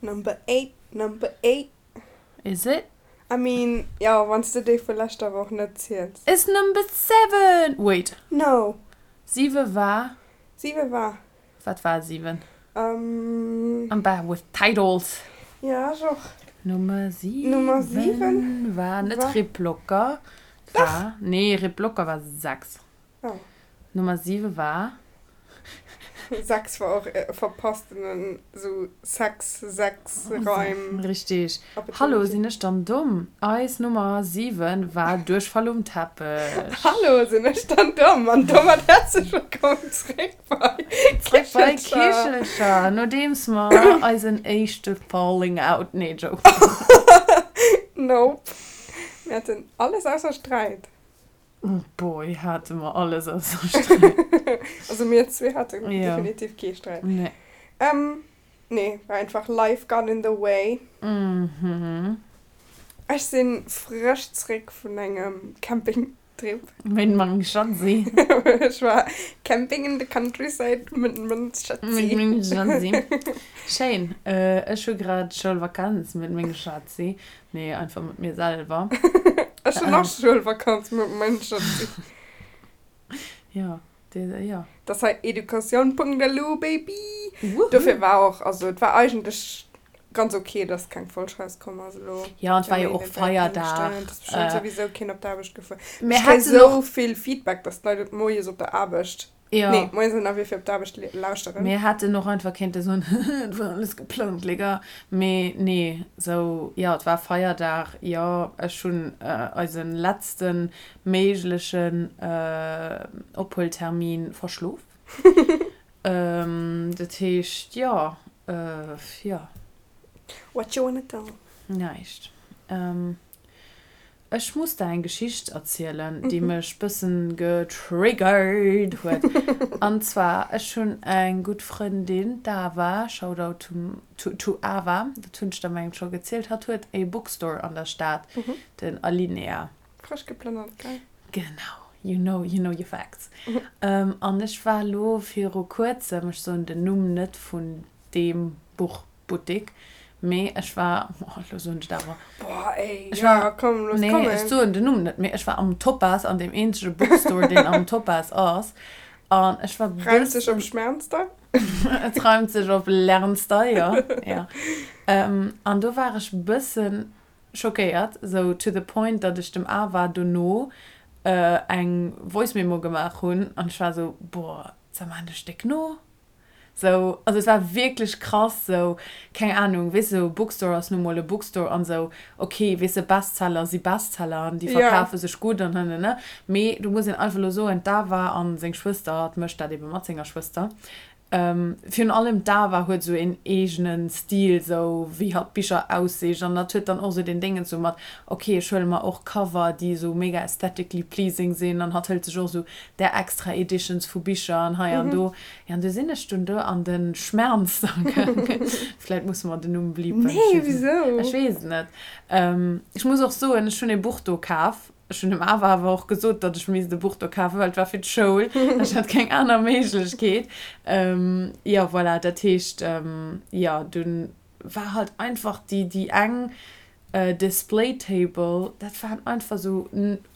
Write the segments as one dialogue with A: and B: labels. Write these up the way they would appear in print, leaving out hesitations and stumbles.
A: Number 8, number 8.
B: Is it?
A: I mean, jo, wann s de déi vu leschter Woch net ziels.
B: It's number 7! Wait.
A: No.
B: 7 war.
A: 7 war.
B: Wat war 7? Um. I'm bad with titles.
A: Ja, ech och.
B: Nummer 7. Nummer 7 war net Rip Locker. Dach. Nee, Rip Locker war 6.
A: Oh.
B: Nummer 7 war.
A: 6 war och verpasstenen sou Sex, Sex, Reim.
B: Richtig. Hallo, sinn ech dann domm? Eis Nummer 7 war Duerchfall um Teppech.
A: Hallo, sinn ech dann domm? An domat häerzlech wëllkomm zréck bei
B: Zréck bei Kichelcher, nodeems mer eisen éischte Falling Out, nee, Joke.
A: Nope. Mir haten alles ausser Sträit.
B: Boy, hate mer alles ausser Sträit.
A: Also mir zwee haten
B: Ja.
A: definitiv kee Sträit.
B: Nee.
A: Ähm, nee, war einfach life got in the way.
B: Mhm.
A: Ech sinn frësch zréck vun engem Campingtrip.
B: Mit mengem Schatzi.
A: Ech war camping in the countryside mit mengem Schatzi.
B: Mit mengem Schatzi. Schéin. Ech hu grad Schoulvakanz mit mengem Schatzi. Nee, einfach mat mir selwer.
A: Ech hunn och Schoulvakanz mat mengem Schatzi.
B: Jo, dee, jo.
A: Dat ass hei Educatioun.lu, Baby!
B: Woohoo!
A: Dofir war och, also et war eigentlech ganz ok, dass keng Folg rauskomm ass elo.
B: Jo, an et war jo och Feierdag.
A: Et ass bestëmmt souwisou keen op d'Aarbecht gefuer.
B: Mir
A: Ech kréie
B: hätten och.
A: sou vill Feedback, dass d'Leit et moies op der Aarbecht
B: Jo.
A: Nee, moies ënnerwee fir op d'Aarbecht lauschteren.
B: Mir hätten och einfach kéinte soen, et war alles geplangt, les gars. Mee nee, sou, jo, et war Feierdag, jo, ech hunn eise letzte méiglechen Ophueltermin verschlof. Dat heescht, jo, jo.
A: What you wanna do?
B: Näischt. Ech muss der eng Geschicht erzielen, déi mech bëssen getriggert huet. An zwar, ech hunn eng gutt Frëndin, d'Ava, Shoutout to to Ava, dat hunn ech der mengen scho gezielt, hatt huet e Bookstore an der Stad, den Alinea.
A: Frësch geplënnert, gell?
B: Genau, you know, you know your facts. An ech war elo viru kuerzem, ech soen den Numm net vun deem Buch, Buttik, mee ech war, oh elo soen ech et awer.
A: Boah ey,
B: Ech
A: ja
B: war,
A: komm, looss
B: nee,
A: kommen.
B: ech soen den Numm net, mee ech war am Topaz, an deem eenzege Bookstore, deen am Topaz ass, an ech war
A: Reimt sech op
B: bëssen.
A: Schmernster?
B: Et reimt sech op Lernster, jo, jo. An do war ech bëssen schockéiert, sou to the point, datt ech dem Ava dono eng Voice Memo gemaach hunn, an ech war sou, boah, sag mal, ech déck no? Sou, also et war wierklech krass, sou, keng Ahnung, weess de, sou Bookstore ass nu mol e Bookstore an sou, ok, weess de, Bestseller si Bestseller an déi verkafe sech gutt an hënnene, mee do muss een einfach elo soen, d'Ava an seng Schwëster, hatt mécht dat ebe mat senger Schwëster, virun allem d'Ava huet sou een eegene Stil, sou wéi hatt d'Bicher aussicht an hatt huet dann och sou deen Déngens sou mat, ok, ech huele mer och Cover, déi sou mega aesthetically pleasing sinn an hatt hëlt sech och sou där extra Editions vu Bicher an hei an do. Jo, an du sinn ech dunn do an de Schmernster gaangen. Vläit musse mer den Numm bleepen.
A: Nee, wisou?
B: Ech weess et net. Ech muss och soen, ech hunn e Buch do kaf. Ech hunn dem Ava awer och gesot, datt ech misst e Buch do kafen, well et war fir d'Schoul. Ech hat keng aner Méiglechkeet. Jo, voilà, dat heescht, jo, dunn war halt einfach déi, déi eng Display Table, dat waren einfach sou,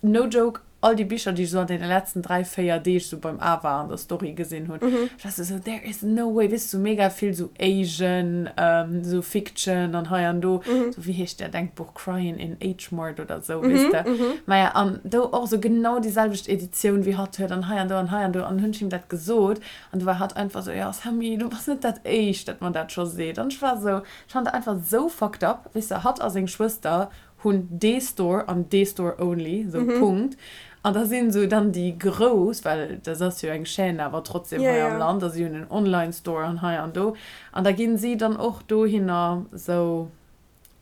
B: no joke, all déi Bicher, déi ech sou an deene letzten 3, 4 Deeg sou beim Ava an der Story gesinn hunn. Ech war sou, sou, there is no way, weess de, sou mega vill sou Asian, sou Fiction an hei an do, sou wéi heescht dat engt Buch, Crying in H Mart oder sou, weess de. Maja, an do och sou genau déi selwecht Editioun wéi hatt huet an hei an do an hei an do an hunn ech him dat gesot an du war hatt einfach sou, jo Sammy, du bass net dat éischt, dat mer dat scho seet an ech war sou, Ech fannen dat einfach sou fucked up, weess de, hatt a seng Schwëster hunn dee Store an dee Store only, sou Punkt. An da sinn sou dann déi grouss, well dat ass jo eng Chaîne awer trotzdem hei am Land, a si hunn en Online Store an hei an do, an da ginn si dann och dohinner sou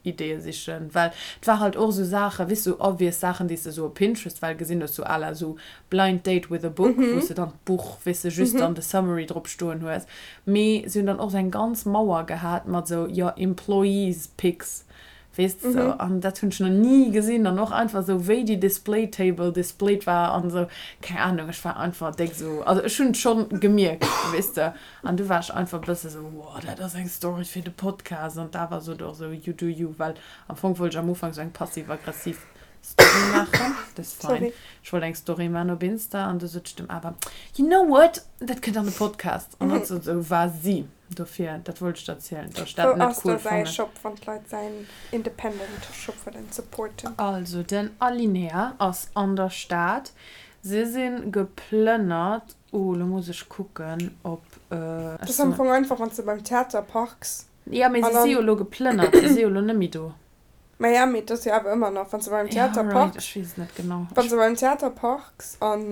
B: Ideeë sichen, well et war halt och sou Saachen, weess de, sou obvious Saachen, déi s de sou op Pinterest well gesinn hues, sou à la sou Blind Date with a Book, wou s de dann d'Buch, weess de, just dann de Summary drop stoen hues. Mee si hunn dann och sou eng ganz Mauer gehat mat sou, jo, Employees Picks. Weess de sou. An dat hunn ech nach ni gesinn. An och einfach sou wéi déi Display Table displayed war an sou, keng Ahnung, ech war einfach déck sou, also ech hunn et schonn gemierkt, weess de. An du war ech einfach e bësse sou, wow, dat ass eng Story fir de Podcast. An d'Ava sot och sou, you do you, well am Fong wollt ech am Ufank sou eng passiv-aggressiv Story maachen, dat ass fein. Ech wollt eng Story maachen op Insta an du sot ech dem Ava, you know what, dat kënnt an de Podcast. An hatt sot sou, vas-y. Dofir, dat wollt ech der erzielen, dass ech dat
A: Wou
B: net
A: ass
B: cool
A: da säi
B: fannen.
A: Shop, wann d'Leit säin Independent Shop wëllen supporten?
B: Also den Alinea ass an der Stad. Si si geplënnert. Oh, lo muss ech kucken, ob
A: Dat
B: ech
A: ass am
B: se.
A: Fong einfach, wann s de beim Theater parks
B: Jo, mee
A: an
B: si si
A: dann.
B: jo elo geplënnert. Si si jo elo net méi do.
A: Maja, mee et ass jo awer ëmmer nach, wann s de beim
B: Ja,
A: Theater
B: right,
A: parks,
B: ech weess et net genau.
A: wann
B: Ech.
A: s de beim Theater parks an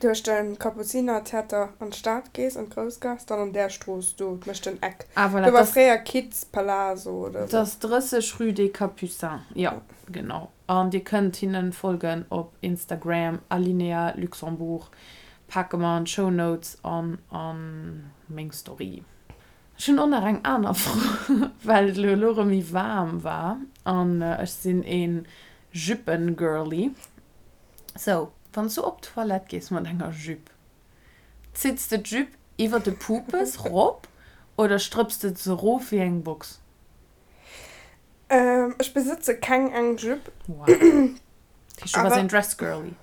A: duerch de Kapuzinertheater an d'Stad gees, an d'Groussgaass, dann an där Strooss do, et mécht den Eck.
B: Ah, voilà,
A: Do war
B: et ass.
A: fréier Kids Palazzo oder
B: Et
A: sou.
B: ass 30 rue des Capucins, jo, genau. An dir kënnt hinnen folgen op Instagram, Alinea Luxembourg. Pake mer an d'Show Notes an a meng Story. Ech hunn och nach eng aner Fro, well et elo erëm méi waarm war an ech sinn ee Juppen-Girlie. Sou, wann s du op d'Toilette gees mat enger Jupe, zitts de d'Jupe iwwer de Pupes rop oder strëpps de se rof wéi eng Box?
A: Ech besëtze keng eng Jupe.
B: Wow. Dat heescht, du bass
A: Awer
B: een Dress-Girlie?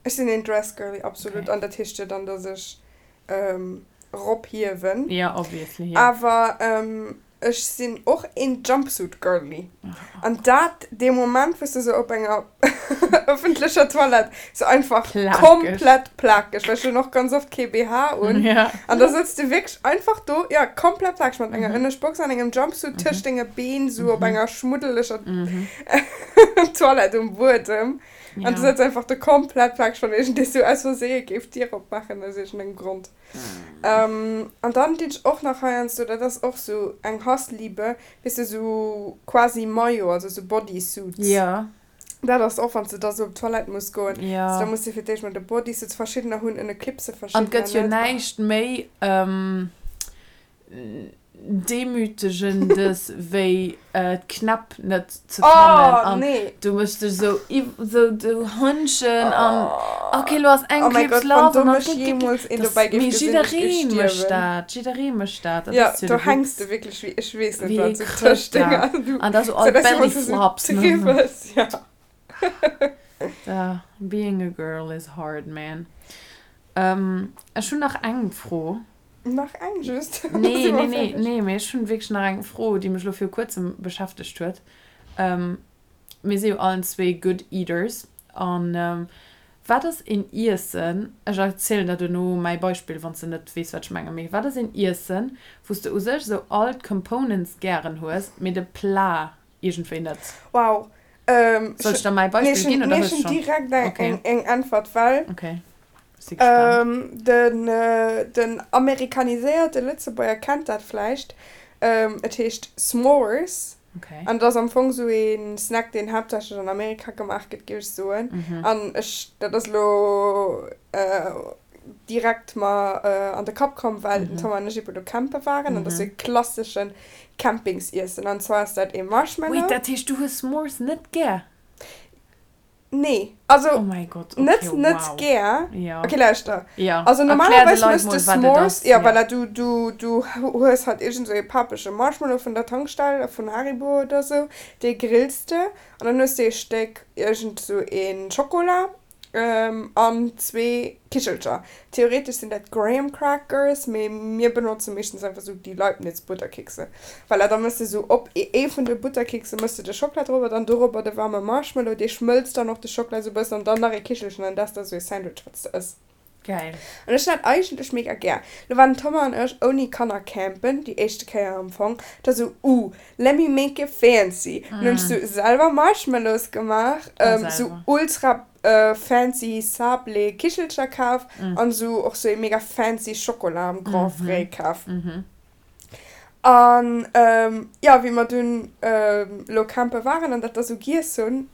A: ech sinn een Dress-Girlie, absolut.
B: Okay.
A: An dat heescht jo dann, dass ech ropiewen.
B: Ja, obviously, jo.
A: Awer ech sinn och een Jumpsuit Girlie. An dat dee Moment wou s de sou op enger ëffentlecher Toilette sou einfach
B: Plakeg.
A: komplett plakeg, well ech hunn och ganz oft kee BH un,
B: Ja.
A: an da sëtz de wierklech einfach do, jo, komplett plakeg mat enger Ënneschtbox an engem Jumpsuit tëscht denge Been sou op enger schmuddeleger Toilette um Buedem. An du
B: Ja.
A: sëtz einfach do komplett plakeg, wann iergendee sou aus Verseeë géif d'Dier opmaachen aus iergendengem Grond. An dann dinn ech och nach heiansdo, dat ass och sou eng Hassliebe, weess de, sou quasi Maillot, also sou Bodysuits.
B: Ja.
A: Dat ass och, wann s de da sou op d'Toilette muss goen,
B: Ja.
A: also da muss de fir d'éischt mol de Bodysuit, verschiddener hunn ënne Clipse,
B: An et
A: verschiddener
B: gëtt jo
A: net.
B: näischt méi Demütegendes wéi d'Knäpp net ze fannen
A: Oh
B: an
A: nee.
B: du méchs dech sou sou du Hënnchen an ok lo ass eng
A: Oh mäi
B: Clips
A: Gott, wann
B: lass
A: do
B: an dann
A: mech jeemools een
B: das
A: dobäi géif
B: mee
A: gesinn, ech géif
B: jidderee mécht
A: stierwen.
B: dat, jidderee mécht dat, dat
A: Ja,
B: ass jo
A: do
B: de
A: hänks
B: Witz.
A: de wierklech wéi ech weess net
B: Wéi ee
A: wat, sou tëscht
B: Krëtter
A: denger, du
B: an da sou
A: sou
B: all
A: dass du emol sou
B: Belly-Flops ne.
A: triwwels, ja.
B: Da being a girl is hard man. Ech hunn nach eng Fro.
A: Nach eng just?
B: Nee, nee, nee, nee, mee ech hunn wierklech nach eng Fro, déi mech elo viru kuerzem beschäftegt huet. Mir si jo allen zwee good eaters an wat ass een Iessen, ech erzielen der duerno mäi Beispill, wann s de net weess, wat ech mengen, mee wat ass een Iessen, wou s de u sech esou all d'Components gären hues, mee de Plat iergendwéi net?
A: Wow. Ähm,
B: Soll ech der mäi
A: nee,
B: Beispill
A: ech
B: ginn
A: hunn
B: oder
A: nee,
B: hues
A: ech
B: du
A: hunn
B: schonn?
A: direkt eng,
B: Okay.
A: eng, eng Äntwert, well
B: Okay. Ech si gespaant.
A: ähm, den, äh, den amerikaniséierte Lëtzebuerger kennt dat vläicht. Ähm, et heescht S'mores
B: Okay.
A: an et ass am Fong sou ee Snack, deen haaptsächlech an Amerika gemaach gëtt, géif ech soen.
B: Mhm.
A: An ech, dat ass elo äh, direkt mer an de Kapp komm, well den Tom an ech eben do campe waren an dat ass sou e klasseschen Campingsiessen an zwar ass dat ee Marshmallow.
B: Wait, dat heescht du hues S'mores net gär?
A: Nee, also
B: Oh mäi Gott, okay,
A: net net
B: wow.
A: gär.
B: Ja.
A: Okay, lauschter.
B: Ja,
A: Also
B: erklär de
A: normalerweis
B: Leit
A: mëss
B: mol
A: de
B: wat et
A: S'mores,
B: ass,
A: ja
B: ja.
A: voilà, du du du hues halt iergend sou ee papege Marshmallow vun der Tankstell, vun Haribo oder sou, dee grills de an dann hues de ee Stéck iergend sou ee Schokola An zwee Kichelcher. Theoretesch sinn dat Graham Crackers, mee mir benotze meeschtens einfach sou déi Leibniz Butterkekse. Voilà, da mëss de sou op ee vun de Butterkekse mëss de de Schockela drobber, dann dorobber de waarme Marshmallow, dee schmëlzt dann och de Schockela sou bëssen an dann nach ee Kichelchen an dat ass da sou ee Sandwich wat s de ëss.
B: Geil.
A: An ech hunn dat eigentlech mega gär. Lo waren den Thomas an ech ouni Kanner campen, déi éischte Kéier am Fong. Da sou, uh, let me make it fancy. Dann hunn ech sou selwer Marshmallows gemaach, sou ultra fancy Sablé Kichelcher kaf an sou och sou ee mega fancy Schokola am Grand Frais kaf. An jo, wéi mer dunn lo campe waren an dat da sou giess hunn,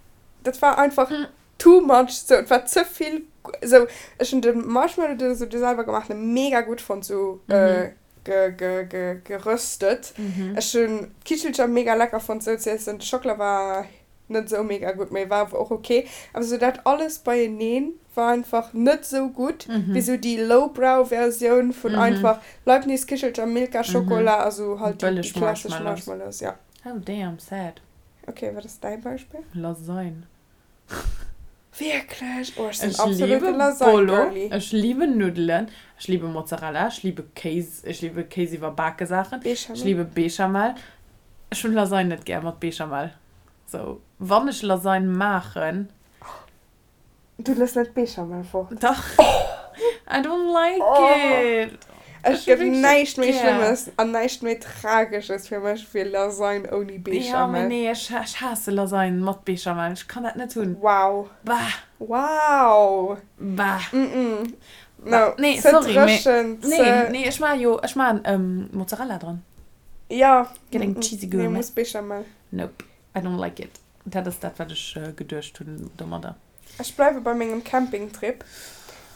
A: dat war einfach too much, sou et war ze vill, sou ech hunn de Marshmallow, de sou de selwer gemaachten, mega gutt fonnt, sou. Geröstet. Ech hunn d'Kichelcher mega lecker fonnt sou ze iessen. De Schockela war net sou mega gutt, mee war awer och ok. Awer sou dat alles beieneen war einfach net sou gutt wéi sou déi lowbrow Versioun vun einfach Leibniz Kichelcher, Milka Schokola a sou halt déi klassesch Marshmallows. Ja.
B: Oh damn, sad.
A: Ok, wat ass däi Beispill?
B: Lasagne.
A: Wierklech? Oh, ech sinn
B: Ech
A: absolute
B: liebe Bolo,
A: Lasagne-Girlie.
B: ech liebe Nuddelen, ech liebe Mozzarella, ech liebe Kéis, ech liebe Kéis iwwerbake Saachen, ech
A: Béchamel.
B: liebe Béchamel. Ech hunn Lasagne net gär mat Béchamel. Sou, wann ech Lasagne maachen.
A: Du looss net d'Béchamel fort.
B: Dach. I don't like it.
A: Et
B: Ech hu
A: gëtt
B: wierklech net
A: näischt méi
B: gär.
A: Schlëmmes an näischt méi Tragesches fir mech wéi Lasagne ouni
B: Ja, mee
A: Béchamel.
B: nee, ech ech haasse Lasagne mat Béchamel. Ech kann dat net hunn.
A: Wow.
B: Bah.
A: Wow.
B: Bah.
A: Mm-mm.
B: Bah.
A: No.
B: Nee,
A: Ze
B: sorry, mee
A: dréchen,
B: nee,
A: ze.
B: nee, ech maache jo, ech maachen Mozzarella dran.
A: Ja.
B: Gëtt eng
A: Mm-mm.
B: cheesy
A: Nee,
B: Gourmet.
A: muss Béchamel.
B: Nope, I don't like it. Dat ass dat, wat ech geduecht hunn domadder.
A: Ech bleiwe bei mengem Campingtrip.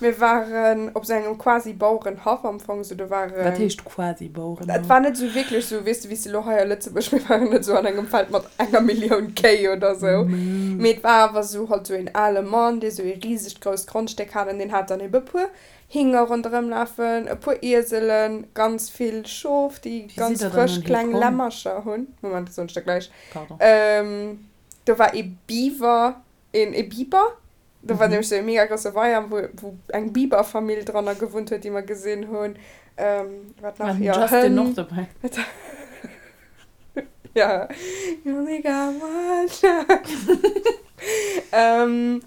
A: Mir waren op sou engem quasi Bauerenhaff am Fong, sou do
B: Wat
A: waren.
B: heescht quasi
A: Et
B: Bauerenhaff?
A: war net sou wierklech sou, weess de, wéi s de elo hei a Lëtzebuerg, mir waren net sou an engem Feld mat enger Millioun Kéi oder sou, mee et war awer sou halt sou een ale Mann, dee sou ee risegt grousst Grondstéck hat an deen hat dann ebe puer Hinger ronderëm lafen, e puer Ieselen, ganz vill Schof, déi
B: Wéi sidd
A: ganz
B: der dann
A: frësch
B: dohi
A: kleng
B: komm?
A: Lämmercher hunn. Moment, dat soen ech der gläich.
B: Pardon.
A: Do war ee Beaver. Een e Biber. Do war nämlech sou e mega grousse Weier, wou, wou eng Biberfamill dranner gewunnt huet, déi mer gesinn hunn. Wat
B: War
A: nach?
B: den
A: Jo,
B: Justin och
A: Hënn.
B: dobäi?
A: Ja. You only got one shot. An.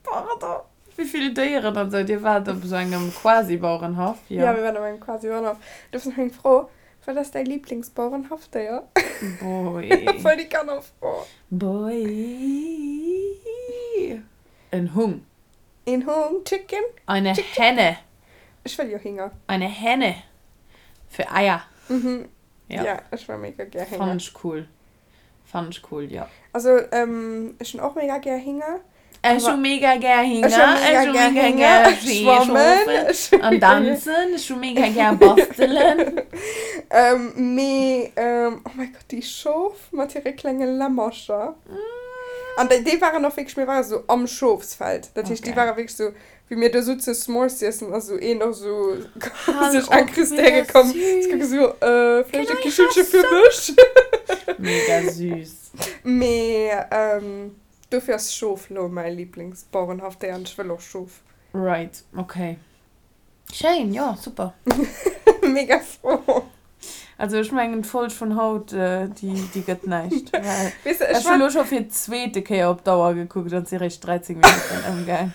B: Pardon. Wéi vill Déieren an sou. Dir waart op esou engem Quasi-Bauerenhaff, jo?
A: Ja, mir waren op engem Quasi-Bauerenhaff. Do ass nach eng Fro, Wat ass däi Liblingsbauerenhaffdéier?
B: Boy.
A: Voll déi Kannerfro.
B: Boy. En Hung.
A: Een Hung? Chicken?
B: Eine
A: Chick, chick.
B: Henne.
A: Ech wëll jo Hinger.
B: Eine Henne. Fir Eier.
A: Mhm.
B: Ja.
A: Ja, ech wëll mega gär Hénger.
B: Fannen ech cool. Fannen ech cool, jo.
A: Also ech hunn och mega gär Hinger.
B: Ech hu mega gär Hinger,
A: Ech hu mega gär Hinger, schwammen
B: an danzen, ech hu mega gär bastelen.
A: Mee oh mäi Gott, déi Schof mat hire klenge Lämmercher. An déi waren och wierklech, mir ware sou am Schofsfeld, dat heescht déi ware wierklech sou Wéi mir do souze S'mores z'iessen ass esou een och esou sech incrustéiere komm. Ech kucke sou, äh, vläicht e Kichelche fir mech?
B: Mega süß.
A: Mee dofir ass Schof lo mäi Liblingsbauerenhaffdéier an ech wëll och Schof.
B: Right, ok. Schéin, jo, super.
A: Mega frou.
B: Also ech mengen d'Folg vun haut déi déi gëtt näischt. Well
A: Weess de, ech
B: ech hu
A: war.
B: lo scho fir d'zweete Kéier op d'Auer gekuckt an et si réischt 13 Minutten ëmgaang.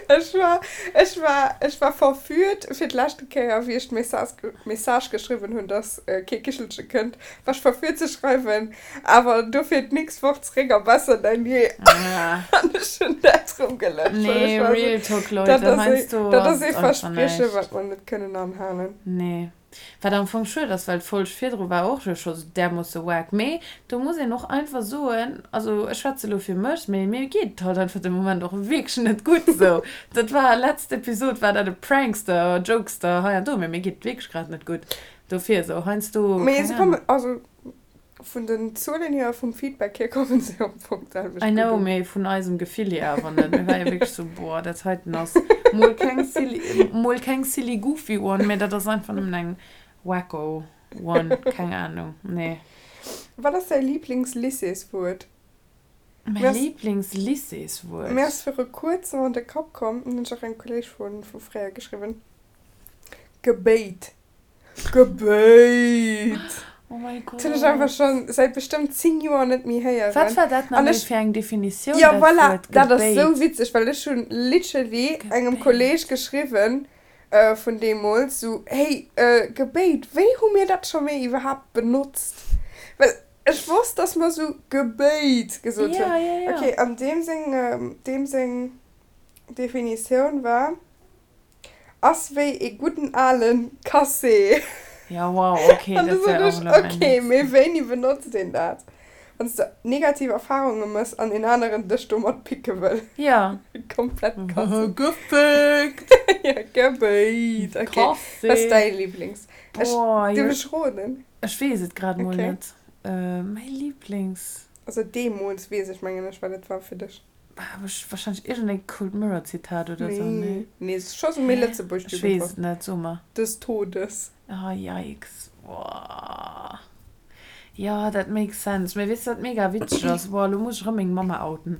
A: Ech war, ech war, ech war verführt fir d'leschte Kéier wéi ech d'Message, Message geschriwwen hunn, dass kee Kichelche kënnt, war ech verführt ze schreiwen, awer dofir d'nächst Woch zeréck a besser denn je. An ech hunn dat rëm gelöscht, well
B: Nee,
A: ech war esou,
B: real talk
A: dat
B: Leute,
A: ass ee,
B: heiansdo
A: dat
B: ass
A: ass ee
B: et einfach
A: Versprieche
B: näischt.
A: wat mer net kënnen anhalen.
B: Nee. Wat am Fong schued ass, well d'Folg virdru war och jo scho därmoosse wack. Mee do muss een och einfach soen, also ech schwätze lo fir mech, mee mir geet et halt einfach de Moment och wierklech net gutt esou. Dat war, letzt Episod war dat e Prankster, Jokester hei an do, mee mir geet et wierklech grad net gutt. Dofir esou heiansdo,
A: Mee
B: keng
A: se
B: Ahnung.
A: kommen, also vun den Zuelen hier a vum Feedback hier kommen se am Fong d'selwecht
B: I
A: gutt
B: know,
A: un.
B: mee vun eisem Gefill hier awer net. Mir war jo wierklech sou, boah, dat heiten ass mol keng silly, mol keng silly goofy one, mee dat ass einfach nëmmen eng wacko one, keng Ahnung, nee.
A: Wat ass däi Liiblings-Lycéeswuert?
B: Mäi
A: Mir ass,
B: Liiblings-Lycéeswuert?
A: mir ass viru kuerzem an de Kapp komm, hunn ech och engem Kolleeg vu vu fréier geschriwwen, Gebéit. Gebéit!
B: Oh mäi
A: Dat hunn ech einfach
B: Gott.
A: schon säit bestëmmt 10 Joer net méi
B: Wat
A: héieren.
B: war dat nach
A: An
B: méi
A: ech,
B: fir eng Definitioun,
A: jo
B: dat
A: voilà,
B: Wuert
A: dat ass sou
B: Gebéit?
A: witzeg, well ech hunn literally engem Kolleg
B: Gebéit.
A: geschriwwen vun deemools, sou, hey, Gebéit, wéi hu mir dat scho méi iwwerhaapt benotzt? Well ech wosst, dass mer sou Gebéit gesot
B: Ja,
A: hunn.
B: ja, ja.
A: Okay, an deem seng, deem seng Definitioun war. Ass wéi ee gudden alen Cassé.
B: Ja wow, okay,
A: An du
B: dat wär
A: sot
B: och
A: ech,
B: elo mäin
A: ok,
B: nächsten.
A: mee wéini benotzt een dat? Wann s de negativ Erfarunge mëss an een aneren dech domat picke wëll.
B: Ja.
A: Komplett
B: krass. Gefickt!
A: Ja, gebéit. Ok.
B: Krass.
A: Wat ass däi Liblings? Ech,
B: Boah,
A: dierf
B: jo.
A: ech roden?
B: Ech weess et grad mol
A: Ok.
B: net. Mäi Liblings.
A: Also deemools weess ech, mengen ech, wat et war fir dech.
B: Wahrscheinlech iergendeng Cold Mirror Zitat oder sou,
A: Nee,
B: nee?
A: nee, et ass scho sou méi
B: Hä?
A: Lëtzebuerg
B: Ech weess
A: Jugendwort.
B: et net, so mer.
A: Des Todes.
B: Oh yikes, boah. Jo, dat makes sense. Mee weess de wat mega witzeg ass? Boah, lo muss ech erëm meng Mamma outen.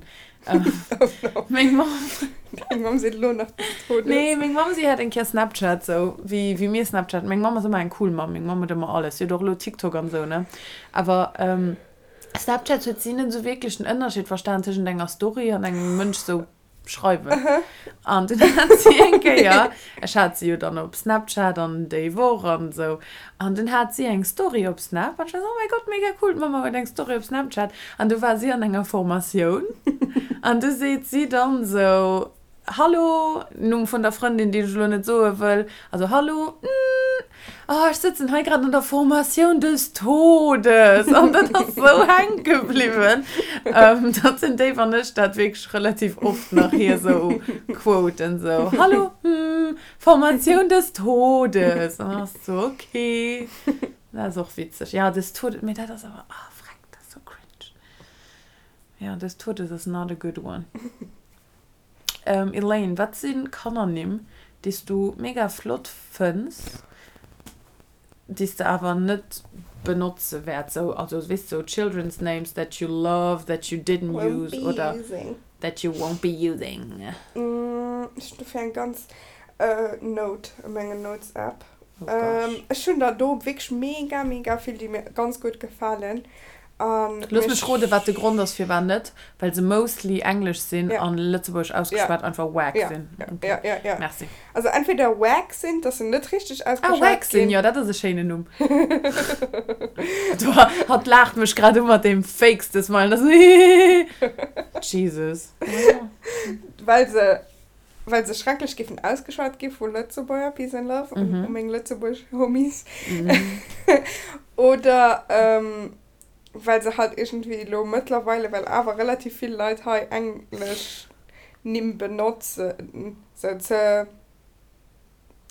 A: Oh no.
B: Meng Mamm.
A: Deng Mamm seet elo nach des Todes.
B: Nee, meng Mamm, si hat eng Kéier Snapchat, sou wéi, wéi mir Snapchat. Meng Mamm ass ëmmer eng cool Mamm, meng Mamm huet ëmmer alles. Si huet och elo TikTok an sou, ne? Awer, Snapchat huet si net sou wierklech den Ënnerscheed verstan tëschent enger Story an engem Mënsch sou schreiwen. An dunn hat si eng Kéier, ech hat si jo dann op Snapchat an déi Woch an sou, an dunn hat si eng Story op Snap an ech war sou, oh mäi Gott, mega cool, d'Mamma huet eng Story op Snapchat. An du war si an enger Formatioun an du seet si dann sou, Hallo, Numm vun der Frëndin, déi ech elo net soe wëll, also Hallo, oh, ech sëtzen hei grad an der Formatioun des Todes an dat ass sou hänke bliwwen, datt den Dave an ech dat wierklech relativ oft nach hir sou quoten, sou Hallo, Formatioun des Todes an dann ass et sou ok, dat ass och witzeg, jo des Todes, mee dat ass awer, ah freck, dat ass sou cringe, jo des Todes ass not a good one. Elaine, wat si Kannernimm, déi s du mega flott fënns, déi s de awer net benotze wäerts? Sou, also weess de, sou children's names that you love that you didn't
A: Won't
B: use
A: be
B: oder
A: using.
B: that you won't be using.
A: Ech hunn dofir eng ganz Note a menger Notes App.
B: Oh gosh.
A: Ech hunn der do wierklech mega mega vill, déi mir ganz gutt gefalen. An
B: Looss mech
A: mech.
B: roden, wat de Grond ass firwat net, well se mostly englesch sinn
A: Ja.
B: an lëtzebuergesch
A: Ja.
B: ausgeschwat einfach wack
A: Ja,
B: sinn.
A: ja,
B: Okay,
A: ja, ja, ja.
B: merci.
A: Also entweder wack sinn, dass se net richteg
B: Ah,
A: ausgeschwat
B: wack sinn,
A: ginn.
B: jo, dat ass e schéinen Numm. Do, hatt laacht mech grad u mat deem fakeste Smile, dat ass hihihihi. Jesus.
A: Well se, well se schrecklech géifen ausgeschwat gi vu Lëtzebuerger, Peace and Love un
B: Mhm.
A: u meng Lëtzebuerg Homies.
B: Mhm.
A: Oder, well se halt iergendwéi elo mëttlerweile, well awer relativ vill Leit hei englesch Nimm benotzen, se ze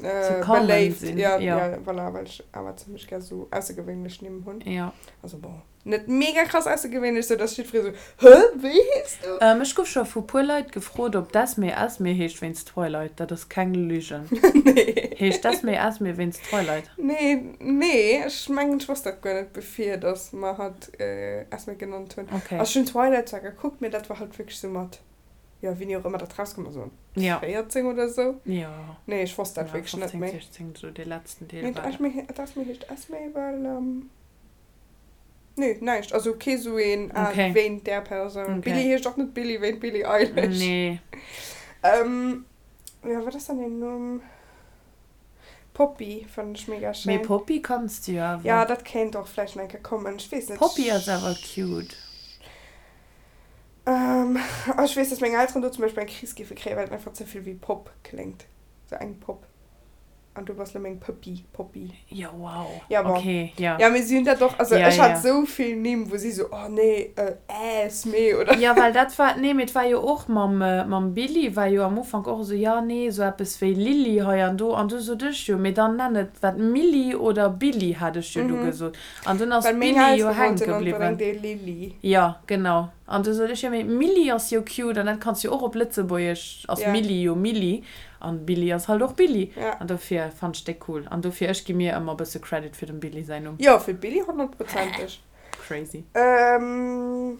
B: Ze common
A: beléift,
B: sinn,
A: jo,
B: jo.
A: jo, voilà, well ech awer zimmlech gär esou aussergewéinlech Nimm hunn.
B: Jo.
A: Also bon, net mega krass aussergewéinlech, sou dass jiddweree sou, Hä, wéi hees du?
B: Ech gouf scho vu puer Leit gefrot, ob d'Esme Esme heescht wéinst Twilight. Dat ass keng Lügen.
A: Nee.
B: Heescht d'Esme Esme wéinst Twilight?
A: Nee, nee, ech mengen, ech wosst dat guer net, bevir dass mer hatt Esme genannt hunn.
B: Okay.
A: Also ech hunn Twilight zwar gekuckt, mee dat war halt wierklech sou mat, jo, wéini och ëmmer dat rauskomm ass, sou
B: Ja.
A: 14 oder sou.
B: Jo.
A: Nee, ech wosst dat
B: Ja,
A: wierklech net
B: 15,
A: méi.
B: 16, sou dee letzten Deel
A: Nee,
B: war dat.
A: d'Esme, d'Esme heescht Esme, well, Nee, näischt. Also kee sou een ah,
B: Okay.
A: wéint där Persoun.
B: Okay.
A: Billie heescht och net Billie wéint Billie Eilish.
B: Nee.
A: Ähm, jo, wat ass dann deen Numm? Poppy fannen ech mega
B: Mee
A: schéin.
B: Poppy kanns de jo awer.
A: Ja, dat kéint och vläicht nach eng Kéier kommen. Ech weess net.
B: Poppy ass awer cute.
A: Ähm, ah, ech weess, dass meng Elteren do zum Beispill eng Kris géife kréien, well et einfach ze vill wéi Pop kléngt. Sou eng Pop. An du bass lo meng Pëppi, Poppy.
B: Jo, wow.
A: Ja, bon.
B: Okay, ja.
A: Ja, mee si hunn dat och, also
B: Ja,
A: ech hat
B: ja.
A: sou vill Nimm, wou si sou, oh nee, Esme oder.
B: Ja, well dat war, nee, mee et war jo och mam, mam Billy war jo am Ufank och esou, ja, nee, esou eppes wéi Lilly hei an do. An du sot ech jo, mee dann nenn et wat Milly oder Billy, hat ech jo du gesot. An dunn ass
A: Well meng
B: Billy jo
A: Eltere
B: hänke
A: wollten
B: bliwwen.
A: onbedéngt ee Lilly.
B: Jo, genau. An du sot ech, jo mee Milly ass jo cute an dat kanns jo och op Lëtzebuergesch, ass
A: Ja.
B: Milly jo Milly an Billy ass halt och Billy.
A: Ja.
B: An dofir fannt ech déi cool. An dofir, ech gi mir ëmmer e bësse Credit fir dem Billy säin Numm.
A: Jo, fir d'Billy honnertprozenteg.
B: Crazy.
A: Ähm,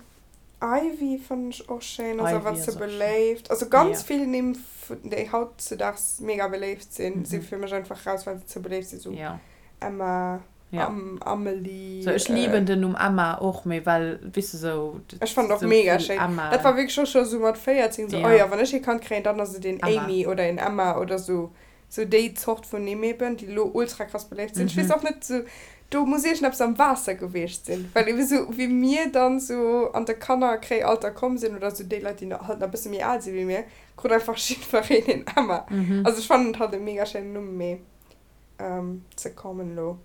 A: Ivy fannen ech och schéin, ass
B: Ivy
A: awer
B: ass
A: ze
B: och schéin.
A: beléift. Also ganz
B: Ja.
A: vill Nimm, déi hautzedaags mega beléift sinn, si
B: Mhm.
A: fir mech einfach raus, well se ze beléift sinn, sou
B: Ja.
A: Emma.
B: Ja.
A: Am Amelie.
B: So, ech lieben den Numm Emma och, mee well, weess de, sou,
A: Ech fannen och
B: sou
A: mega
B: vill
A: schéin.
B: Emma.
A: Dat war wierklech och scho sou mat 14 sou,
B: Ja.
A: oh jo, wann ech ee Kand kréien, dann ass et een
B: Emma.
A: Amy oder een Emma oder sou. Sou déi Zort vun Nimm eben, déi elo ultra krass beléift sinn. Ech weess
B: Mhm.
A: och net, sou, do muss iergendeppes am Waasser gewiescht sinn, well ebe sou wéi mir dann sou an de Kannerkréialter komm sinn oder sou déi Leit, déi halt nach e bësse méi al si wéi mir, krut einfach jiddwereen een Emma.
B: Mhm.
A: Also ech fannen et halt e mega schéinen Numm, mee. ze kommen elo.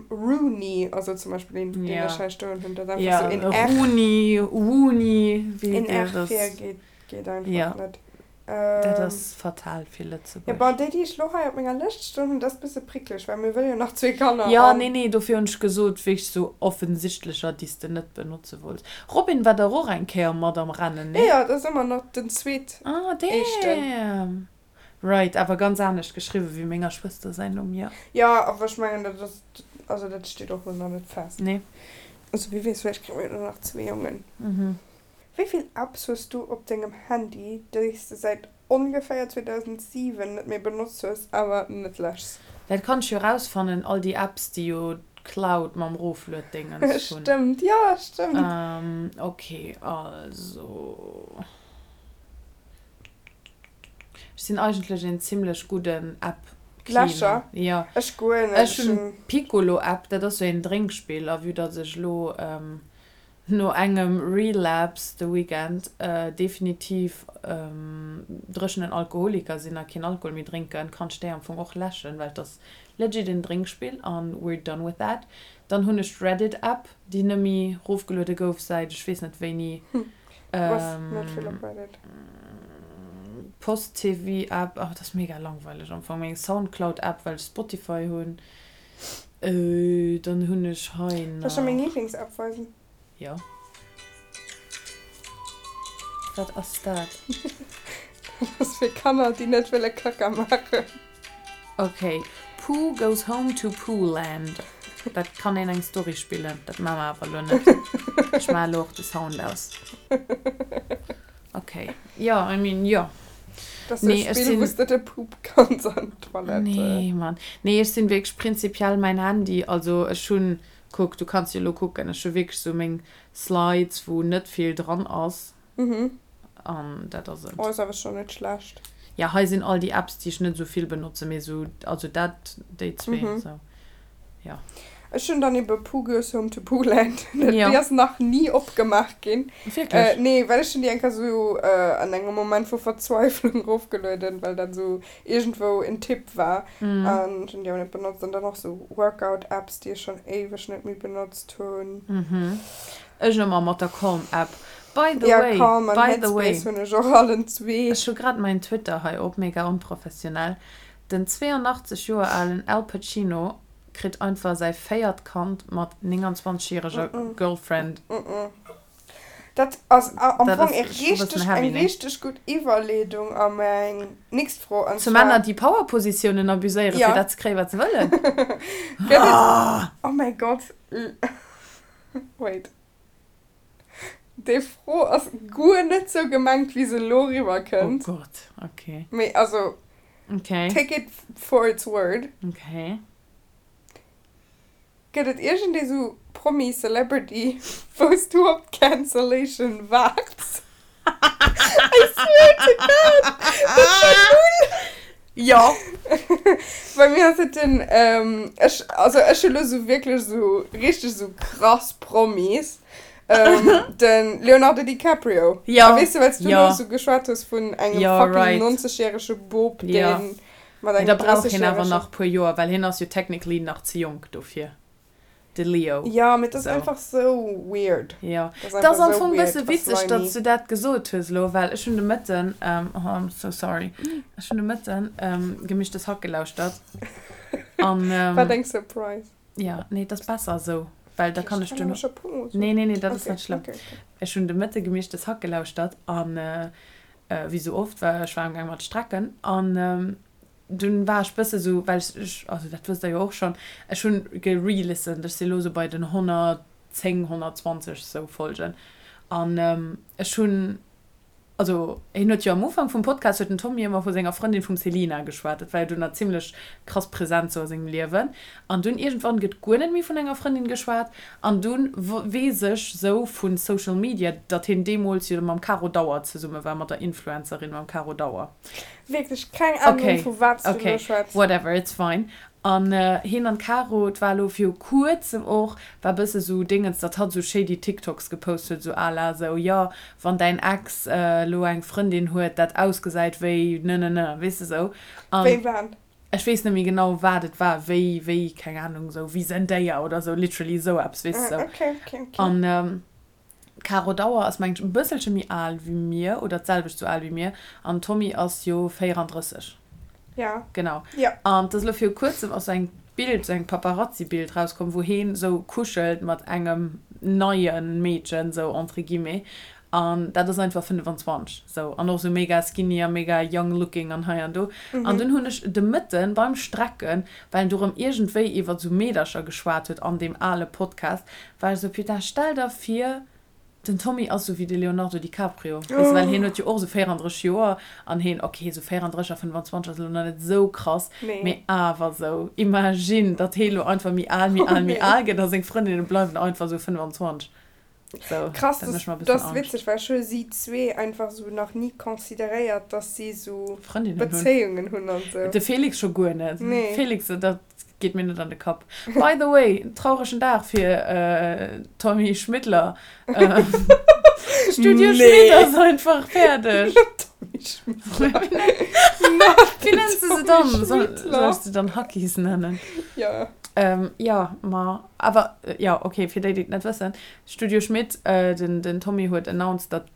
A: Rooney ass elo zum Beispill een, deen ech hei stoen hunn. Dat ass einfach sou een R.
B: Rooney, Wooney, wéi
A: Een R vir geet, geet einfach net.
B: Dat ass fatal fir Lëtzebuerg.
A: Jo, bon, déi, déi ech lo hei op menger Lëscht stoen hunn, dat ass bësse prickleg, well mir wëlle jo nach zwee Kanner
B: Jo, nee, nee, dofir hunn ech gesot, wéinst sou offensichtlecher, déi s de net benotze wollts. Robin war dach och eng Kéier mat am Rennen,
A: nee? Jo, jo, dat ass ëmmer nach den zweet
B: Ah,
A: éischten.
B: damn. Right, awer ganz anescht geschriwwen wéi menger Schwëster säin Numm, jo.
A: Jo, awer ech mengen, dat ass, also dat steet och lo nach net fest.
B: Nee.
A: Also wie weess, vläicht kréie mir jo nach zwee Jongen. Wéi vill Apps hues du op dengem Handy, déi s de säit ongeféier 2007 net méi benotzt hues, awer net läschs?
B: Dat kann ech jo rausfannen, all déi Apps déi jo d'Cloud mam Roflued-Dingens
A: hunn. Stëmmt, jo stëmmt.
B: Ok, also ech sinn eigentlech een zimlech gudden App-Cleaner.
A: Läscher?
B: Jo.
A: Ech guer net.
B: Ech hunn d'Piccolo-App, dat ass sou een Drénkspill, a vue datt ech elo No engem Relapse de Weekend, definitiv dréchenen Alkoholiker sinn a keen Alkohol méi drénken, kann ech déi am Fong och läschen, well et ass legit en Drénkspill an we're done with that. Dann hunn ech d'Reddit App, déi nëmmi rofgeluede gouf säit ech weess net wéini.
A: Du bass net vill op Reddit.
B: Post TV App, oh dat ass mega langweileg am Fong. Meng Soundcloud App, well ech Spotify hunn. Dann hunn ech hei
A: Soll ech der meng nach. Lieblings-App weisen?
B: Jo. Wat ass dat?
A: Dat ass fir Kanner, déi net wëlle Kacka maachen.
B: Ok, Pooh goes home to Poohland. Dat kann een eng Story spillen. Dat maache mer awer elo net. Ech maache elo och de Sound aus. Ok, jo, I mean, jo.
A: Dat ass e Spill, wou s de de Poop kanns an d'Toilette.
B: Nee, Mann. Nee, ech sinn wierklech prinzipiell mäin Handy, also ech hunn, kuck, du kanns jo elo kucken, ech hu wierklech sou meng Slides, wou net vill dran ass. An dat ass et.
A: Oh, ass awer schonn net schlecht.
B: Ja, hei sinn all déi Apps, déi ech net esou vill benotzen, mee sou, also dat, déi zwee, sou. Jo.
A: Ech hunn dann ebe Pooh Goes Home to Poohland. Déi ass nach ni opgemaach ginn.
B: Wierklech?
A: Nee, well ech hunn déi eng Kéier sou an engem Moment vu Verzweiflung erofgelueden, well dat sou iergendwou en Tipp war. An ech hunn déi awer net benotzt. An dann och sou Workout-Apps, déi ech schonn éiweg net méi benotzt hunn.
B: Ech ëmmer mat der Calm-App. By the
A: Ja,
B: way,
A: Calm an
B: by the way.
A: Headspace hunn ech och allen zwee.
B: Ech hu grad mäin Twitter hei op, mega onprofessionell. Den 82 Joer alen Al Pacino kritt einfach säi véiert Kand mat 29 järeger Girlfriend.
A: Dat ass am
B: Dat
A: Fong
B: ass
A: e
B: scho bëssen
A: richteg,
B: heavy,
A: eng
B: nee?
A: richteg gutt Iwwerleedung a meng nächst Fro, an
B: Zu
A: zwar.
B: Männer, déi Powerpositiounen abuséieren,
A: Ja.
B: fir dat ze kréien, wat se wëllen.
A: Gëtt et, oh mäi Gott, wait. Déi Fro ass guer net sou gemengt, wéi se elo eriwwer
B: Oh
A: kënnt.
B: Gott, okay.
A: Mee also,
B: Okay.
A: take it for its word.
B: Okay.
A: Gëtt et iergendee sou Promi, Celebrity, wou s du op d'Cancellation waarts? I swear to God, dat war null.
B: Jo.
A: Bei mir ass et den, ech, also ech hu lo sou wierklech sou richteg sou krass Promis, den Leonardo DiCaprio.
B: Jo.
A: A weess de, well s du
B: Jo.
A: lo sou geschwat hues vun engem
B: Jo,
A: fucking
B: right.
A: 90 järege Bop,
B: Jo.
A: deen mat
B: Mee
A: engem
B: da brauch hien awer
A: 30 järege.
B: nach puer Joer, well hien ass jo technically nach ze jonk dofir. De Leo.
A: Jo, mee et ass
B: Sou.
A: einfach sou weird.
B: Jo.
A: Et ass
B: Et ass
A: einfach
B: am
A: sou
B: Fong
A: weird
B: bësse
A: a
B: witzeg,
A: slimy.
B: datt s du dat gesot hues elo, well ech hunn de Mëtten, oh, I'm so sorry, ech hunn de Mëtten Gemischtes Hack gelauschtert an.
A: Wat eng Surprise.
B: Jo, nee, et ass besser esou, well da kann ech
A: Ech kann
B: duerno.
A: awer scho puer mol soen.
B: Nee, nee, nee, dat ass
A: Okay,
B: net schlëmm.
A: okay, okay.
B: Ech hunn de Mëtte Gemischtes Hack gelauschtert an, wéi sou oft, well ech war amgaang mat strecken an Dunn war ech bësse sou, well ech, ech, also dat wësst der jo och schonn, ech hunn gerelistend, ech si lo sou bei den 110, 120 sou Folgen an ech hunn, also hien huet jo am Ufank vum Podcast huet den Tommy ëmmer vu senger Frëndin vum Selina geschwat, dat war jo dunn nach zimlech krass present sou a sengem Liewen an dunn iergendwann gëtt guer net méi vun enger Frëndin geschwat an dunn weess ech sou vu Social Media, datt hien deemools jo mam Caro Dauer zesumme war, mat der Influencerin mam Caro Dauer.
A: Wierklech keng Ahnung
B: Okay,
A: vu wat s du elo
B: okay,
A: schwätz.
B: whatever, it's fine. An hien an d'Caro, et war elo viru kuerzem och, war bësse sou Dingens, datt hatt sou shady TikToks gepost huet, sou à la sou, jo, wann däin Ex elo eng Frëndin huet, dat ausgesäit wéi ne ne ne, weess de sou. An
A: Wéi wat?
B: Ech weess net méi genau wat et war, wéi, wéi, keng Ahnung, sou wéi Zendaya oder sou, literally sou eppes, weess de sou.
A: Okay, okay, okay.
B: An d'Caro Dauer ass mengen ech e bësselche méi al wéi mir oder d'selwecht sou al wéi mir an Tommy ass jo 34.
A: Ja.
B: Genau.
A: Ja.
B: An 't ass elo viru kuerzem ass sou eng Bild, sou eng Paparazzi-Bild rauskomm, wou heen sou kuschelt mat engem neie Meedchen, sou entre guillemets. An dat ass einfach 25, sou. An och sou mega skinny a mega young looking an hei an do. An dunn hunn ech de Mëtten beim Strecken, well en do rëm iergendwéi iwwert sou Meedercher geschwat huet an deem ale Podcast, war ech sou, Putain, stell der vir, den Tommy ass sou wéi de Leonardo DiCaprio, weess de, well hien huet jo och sou 34 Joer an hien, ok, sou 34 a 25 ass elo nach net sou krass, mee awer sou, imagine, datt hee lo einfach méi al, méi al, méi al gëtt a seng Frëndinne bleiwen einfach sou 25. So,
A: Krass,
B: dat mécht mer e
A: dat
B: bëssen
A: ass
B: Angscht.
A: witzeg, well ech hu si zwee einfach sou nach ni consideréiert, dass si sou
B: Frëndinnen hunn.
A: Bezéiungen hunn an sou.
B: De Felix scho guer net.
A: Nee.
B: Felix, dat geet mir net an de Kapp. By the way, trauregen Dag fir Tommy Schmiddler. Studio
A: Nee.
B: Schmidt ass einfach fäerdeg.
A: Tommy Schmiddler.
B: Wéi nenns de se dann?
A: Tommy
B: Soll,
A: Schmiddler.
B: soll ech se dann Hackies nennen?
A: Ja.
B: Jo, ma awer, jo, ok, fir déi, déi et net wëssen, Studio Schmidt, den, den Tommy huet announced, datt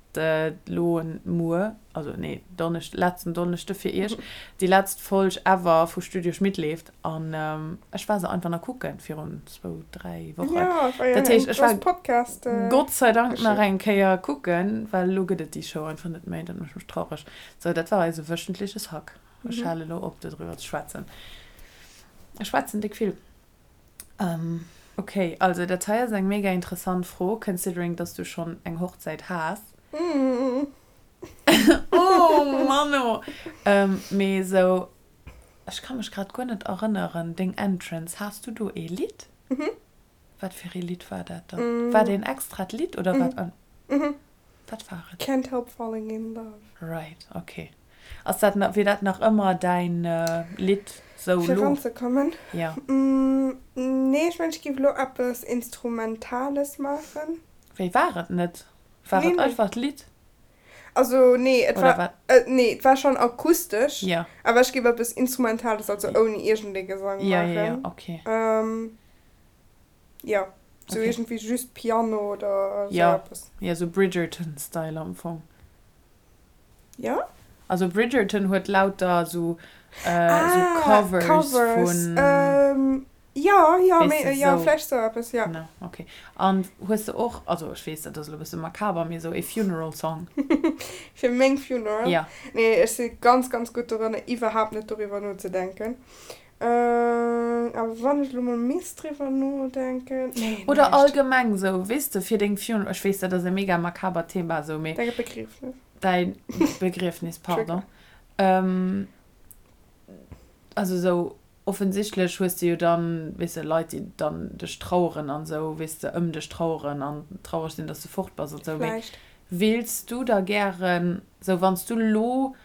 B: elo muer, also nee, Donneschd, letzten Donneschde fir iech, déi letzt Folg ever vu Studio Schmidt leeft. An ech war se einfach nach kucken virun zwou, dräi Wochen.
A: Ja, war jo
B: Dat
A: eng
B: heescht, ech war
A: grouss Podcast.
B: Gott sei Dank nach
A: Geschicht.
B: eng Kéier kucken, well elo gëtt et déi Show einfach net méi. Dat mécht mech traureg. Sou, dat war eise wöchentliches Hack. Ech hale elo op, dodriwwer ze schwätzen. Ech schwätzen déck vill. Ok, also dat hei ass eng mega interessant Fro, considering dass du schonn eng Hochzäit has. Oh Manno! Mee esou, ech ka mech grad guer net erënneren, deng Entrance, has du do ee Lidd? Wat fir ee Lidd war dat dann? War dat een extrat Lidd oder wat? Wat war et?
A: Can't help falling in love.
B: Right, ok. Ass dat nach, wier dat nach ëmmer däin Lidd sou
A: Fir
B: lo?
A: eranzekommen?
B: Ja.
A: Nee, ech mengen ech géif elo eppes Instrumentales maachen.
B: Wéi war et net? War
A: Nee,
B: et
A: nee.
B: einfach d'Lidd?
A: Also nee, et
B: Oder
A: war,
B: wat?
A: nee, et war schonn akustesch,
B: Ja.
A: awer ech géif eppes Instrumentales, also ouni iergendee Gesang
B: Ja, ja, ja,
A: maachen.
B: ok.
A: Jo, sou
B: Okay.
A: iergendwéi just Piano oder sou
B: Ja,
A: eppes.
B: ja, sou Bridgerton-Style am Fong.
A: Ja?
B: Also Bridgerton huet lauter sou, sou
A: Ah,
B: Covers
A: Covers.
B: vun.
A: Ähm, jo, jo,
B: Weess
A: mee,
B: de,
A: jo,
B: sou.
A: vläicht sou eppes, jo.
B: Genau, okay. An hues de och, also ech weess, dat ass elo e bësse makaber, mee sou ee Funeral Song?
A: Fir meng Funeral?
B: Ja.
A: Nee, ech si ganz, ganz gutt doranner, iwwerhaapt net doriwwer nozedenken. Awer wann ech elo mol misst driwwer nodenken, nee,
B: Oder
A: näischt.
B: allgemeng sou, weess de, fir deng Funeral, ech weess, dat ass e mega makabert Thema sou, mee.
A: Däi Begriefnis.
B: Däi Begriefnis, pardon. Also sou, offensichtlech hues de jo dann, weess de, Leit, déi dann dech traueren an sou, weess de, ëm dech traueren an traureg sinn, dass de fort bass an sou, mee
A: Vläicht.
B: wills du da gären, sou wann s du lo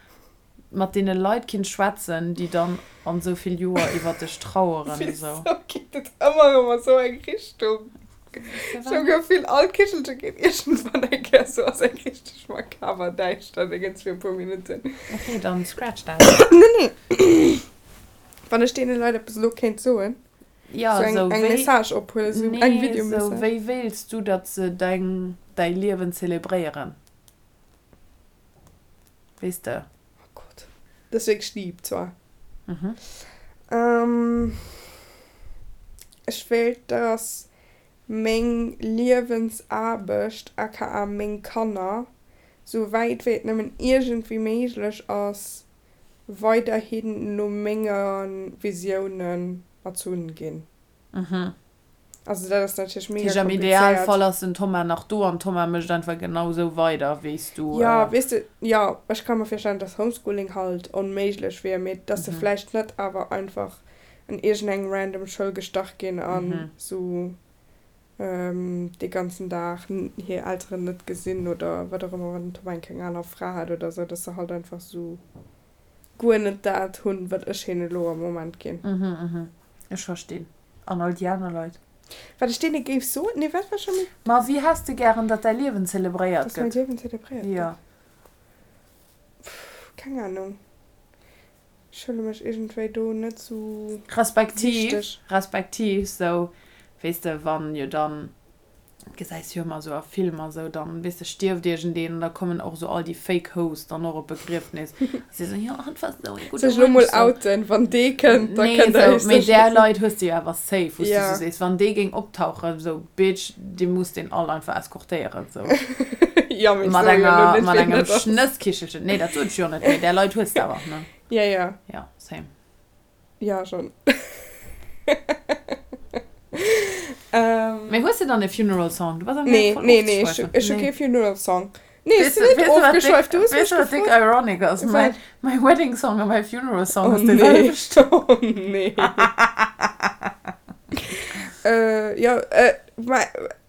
B: mat deene Leit kinnt schwätzen, déi dann an esou vill Joer iwwert dech traueren esou.
A: Wisou geet et ëmmer erëm a sou eng Richtung? Ech hu Gefill, all Kichelche geet iergendwann eng Kéier sou a seng richteg makaber däischter Déngens fir e puer Minutten.
B: Ok, dann scratch that.
A: Nee, nee. Wann ech deene Leit eppes elo kéint soen,
B: Ja,
A: sou eng,
B: esou
A: eng
B: wéi.
A: Message ophuelen, sou eng
B: Nee, esou
A: Videomessage.
B: wéi wéilts du, datt se deng, däi Liewen zelebréieren? Weess de.
A: Oh Gott, dat ass wierklech deep zwar.
B: Mhm.
A: Ech wéilt, dass meng Liewensaarbecht, aka meng Kanner, sou wäit wéi et nëmmen iergendwéi méiglech ass, weiderhin no menge Visiounen erzunn ginn.
B: Mhm.
A: Also dat ass natierlech
B: Dat
A: mega
B: heescht, am
A: komplizéiert.
B: Idealfall ass den Thomas nach do an Thomas mécht einfach genau esou weider wéi s du.
A: Jo, weess de, jo, ech ka mer virstellen, dass Homeschooling halt onméiglech wier, mee dass se vläicht net awer einfach an iergendeng random Schoul gestach ginn a sou dee ganzen Dag hir Elteren net gesinn oder wat och ëmmer, wann den Thomas eng keng aner Fra hat oder sou, dass se halt einfach sou guer net dat hunn, wat ech hinnen elo am Moment ginn.
B: Ech verstinn. An all déi aner Leit.
A: Wat ech deene géif soen? Nee, wat war scho méi?
B: Ma wéi häss de gären, datt däi Liewen zelebréiert
A: Dass mäi
B: gëtt?
A: Liewen zelebréiert
B: Jo.
A: gëtt? Pff, keng Ahnung. Ech huele mech iergendwéi do net sou
B: Respektiv,
A: wichteg.
B: respektiv sou, weess de, wann jo dann, gesäis jo ëmmer sou a Filmer sou, dann, weess de, stierft iergendeen an da kommen och sou all déi fake Hoes dann och op d'Begriefnis a si sou, jo, hatt war sou ee
A: Soll
B: gudde
A: ech elo
B: Mënsch,
A: mol
B: sou.
A: outen, wann dee kënnt, da
B: Nee,
A: kënnt der
B: sou,
A: iech
B: mee
A: sécher
B: där
A: sinn.
B: Leit hues de jo awer safe, wou s de
A: Ja.
B: sou sees, wann dee géing optauchen, sou, Bitch, dir musst deen all einfach eskortéieren, sou.
A: Jo, mee ech
B: Mat
A: soe jo elo
B: enger,
A: net,
B: mat
A: wien
B: engem
A: dat ass.
B: Schnësskichelchen. Nee, dat sot ech jo net, mee där Leit hues de awer, ne?
A: Ja, ja.
B: Ja, same.
A: Ja, schon.
B: Mee hues de dann e Funeral Song? Du bass am
A: Nee,
B: voll
A: nee, nee, ech hu,
B: ofgeschweift.
A: ech hu
B: Nee.
A: kee Funeral Song. Nee, ech
B: Weess
A: sinn
B: de,
A: net
B: weess de wat dick,
A: ofgeschweift, du hues
B: weess
A: mech
B: de wat dick
A: gefrot.
B: ironic ass? Mäi,
A: Wat?
B: mäi Wedding Song a mäi Funeral Song
A: Oh
B: ass dee
A: nee,
B: selwechten.
A: oh nee. Äh, jo, äh, mä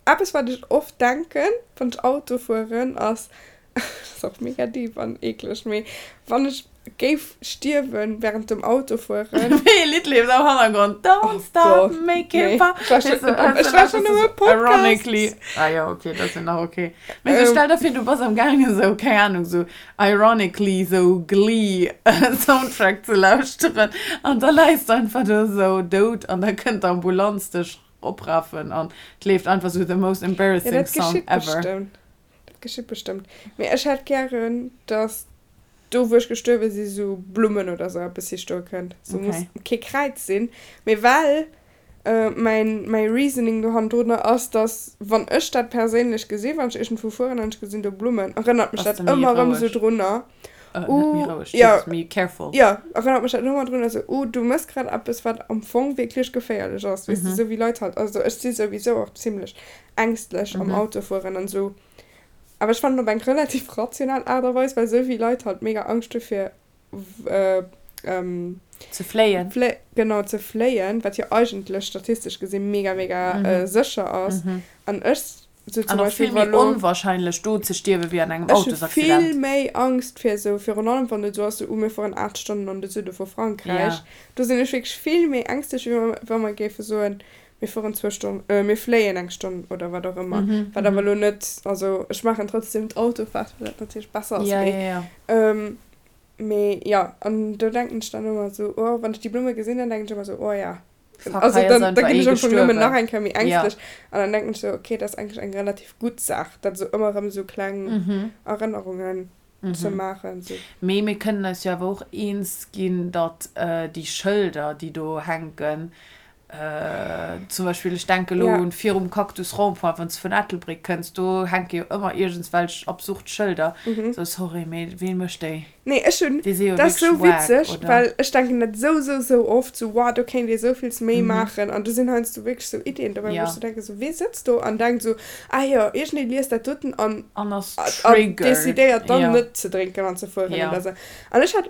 A: eppes wat ech oft denken, wann ech Auto fueren, ass, Dat ass och mega deep an eekleg, mee wann ech géif stierwen während dem Autofueren.
B: Wéi e Lidd leeft am Hannergrond? Don't
A: Oh
B: stop
A: Gott,
B: making
A: nee.
B: fun.
A: Ech war
B: Weess
A: schon,
B: du,
A: ech war schon um e Podcast.
B: Ironically. Ah jo, okay, dat ass jo nach okay. Mee sou stell der vir, du bass am gaangen esou, keng Ahnung, sou ironically sou Glee Soundtrack ze lauschteren an da läis de einfach do sou dout an da kënnt d'Ambulanz dech oprafen an et leeft einfach sou the most
A: Ja,
B: embarrassing
A: dat
B: song
A: geschitt
B: ever.
A: bestëmmt. Dat geschitt bestëmmt. Mee ech hätt gären, dass do wou ech gestuerwe si sou Blummen oder sou eppes hi stoe kënnt. Sou muss
B: Okay.
A: kee Kräiz sinn, mee well mäin mäi Reasoning do hannendrunner ass, dass wann ech dat perséinlech gesinn, wann ech iergendwou fueren an ech gesinn do Blummen, erënnert mech
B: Bass
A: dat
B: de méi
A: ëmmer erëm sou
B: roueg?
A: drunner,
B: Äh, net méi
A: uh
B: roueg,
A: jo,
B: Jesus, méi careful.
A: jo, erënnert mech dat ëmmer drunner sou, uh du mëss grad eppes wat am Fong wierklech geféierlech ass, weess de, sou wéi Leit halt, also ech si souwisou och zimlech ängstlech am Auto fueren an esou. Awer ech fannen op eng relativ rational Aart a Weis, well esou vill Leit halt mega Angscht hu fir
B: Ze fléien.
A: Genau, ze fléien, wat jo eigentlech statistesch gesi mega mega sécher ass. An ech sou zum
B: An och
A: Beispill
B: vill
A: wa
B: méi
A: lo.
B: onwahrscheinlech do ze stierwe wéi an engem
A: Ech hu vill
B: Autosaccident.
A: méi Angscht fir esou, virun allem wann et esou ass, sou, oh mir fueren 8 Stonnen an de Süde vu Frankräich.
B: Ja.
A: Do sinn ech wierklech vill méi ängstlech, wéi wa mer géife soen, Mir fueren zwou Stonn, mir fléien eng Stonn oder wat och ëmmer. Wat awer elo net, also ech maachen trotzdem d'Autofahrt, well dat natierlech besser ass, mee mee jo. An do denken ech dann ëmmer esou, oh, wann ech déi Blumme gesinn, dann denken ech ëmmer esou, oh ja.
B: Fuck,
A: Also
B: hei ass
A: dann da
B: einfach
A: ginn
B: ee
A: ech am Fong nëmmen
B: gestuerwen.
A: nach eng Kéier méi
B: Ja.
A: ängstlech an dann denken ech esou, okay, dat ass eigentlech eng relativ gutt Saach, dat esou ëmmer erëm esou kleng Erënnerungen ze maachen. Esou.
B: Mee mir kënnen eis jo awer och eens ginn, datt déi Schëlder, déi do hänken, Zum Beispill, ech denke lo
A: Ja.
B: un virum Cactus Rond-point, wann s de vun Ettelbréck kënns, do hänke jo ëmmer iergendswelch absurd Schëlder. Sou, sorry, mee ween mécht déi?
A: Nee, ech hunn,
B: Déi si jo
A: dat ass
B: wierklech
A: sou
B: wack,
A: witzeg,
B: oder?
A: well ech denken dat sou, sou, sou oft, sou, wow, do kéint ee sou villes méi maachen. An do sinn heiansdo wierklech sou Iddien dobäi, wou
B: Ja.
A: ech sou denken, sou, wee sëtzt do an denkt sou, ah jo, iergendee liest dat doten an,
B: An ass
A: an
B: triggered.
A: decidéiert dann
B: Ja.
A: net ze drénken an ze fueren
B: Ja.
A: oder sou. An ech hat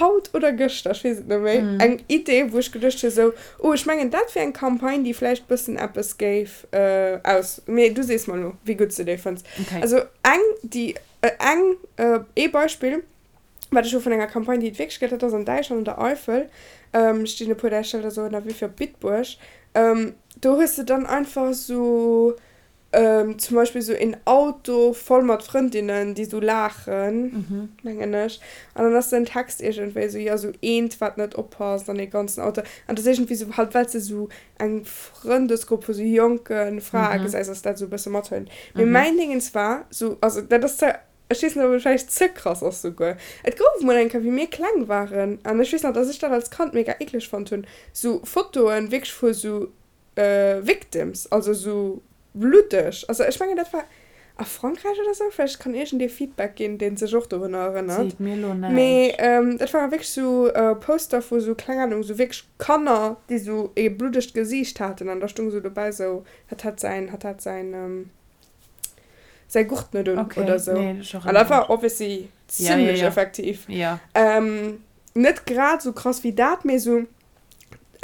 A: haut oder gëschter, ech weess et net méi, eng Idee, wou ech geduecht hu sou, oh, ech mengen, dat wier eng Campagne, déi vläicht bëssen eppes géif aus, mee du sees mer elo, wéi gutt s de déi fënns.
B: Okay.
A: Also eng, déi, eng, ee Beispill, wat ech hu vun enger Campagne, déi et wierklech gëtt, dat ass an Däitschland, an der Eifel, stinn e puer där Schëlder sou ënnerwee fir op Bitburg, do hues de dann einfach sou Zum Beispill sou een Auto voll mat Frëndinnen, déi sou laachen, mengen ech. An dann ass den Text iergendwéi sou, jo, sou eent, wat net oppasst an ee ganzen Auto. An dat ass iergendwéi sou, halt well s de sou eng Frëndesgrupp vu sou jonke Frae gesäis, ass dat sou e bësse mathëlt. Mee mäin Dingens war sou, also dat ass zwar, ech weess net, ob et vläicht ze krass ass souguer, et gouf mol eng Kéier, wéi mir kleng waren, an ech weess nach, dass ech dat als Kand mega eekleg fonnt hunn, sou Fotoen wierklech vu sou Victims, also esou bluddeg. Also ech mengen dat war a Frankräich oder sou, vläicht kann iergendee Feedback ginn, dee sech och dorunner erënnert.
B: Seet mir elo näischt.
A: Mee dat ware wierklech sou Poster vu sou, kleng Ahnung, sou wierklech Kanner, déi sou ee bluddegt Gesiicht haten an da stung sou dobäi sou, hatt hat säin, hatt hat säin, säi Gurt net un
B: Okay,
A: oder sou.
B: nee, ech
A: An
B: erënnere
A: dat war
B: mech.
A: obviously
B: Ja, ja,
A: zimlech
B: ja.
A: effektiv.
B: Ja.
A: Net grad sou krass wéi dat, mee sou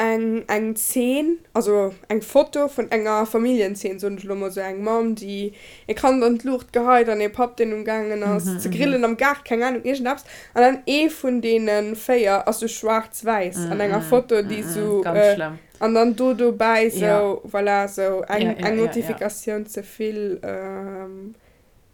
A: eng eng Zeen, also eng Foto vun enger Familljenzeen, soen ech elo mol, sou eng Mamm, déi e Kand an d'Luucht geheit an ee Papp, deen umgaangen ass ze grillen am Gaart, keng Ahnung, iergendeppes. An dann ee vun deene 4 ass sou schwaarz-wäiss an enger Foto, déi sou, an dann do dobäi sou, voilà, sou eng eng Notifikatioun ze vill.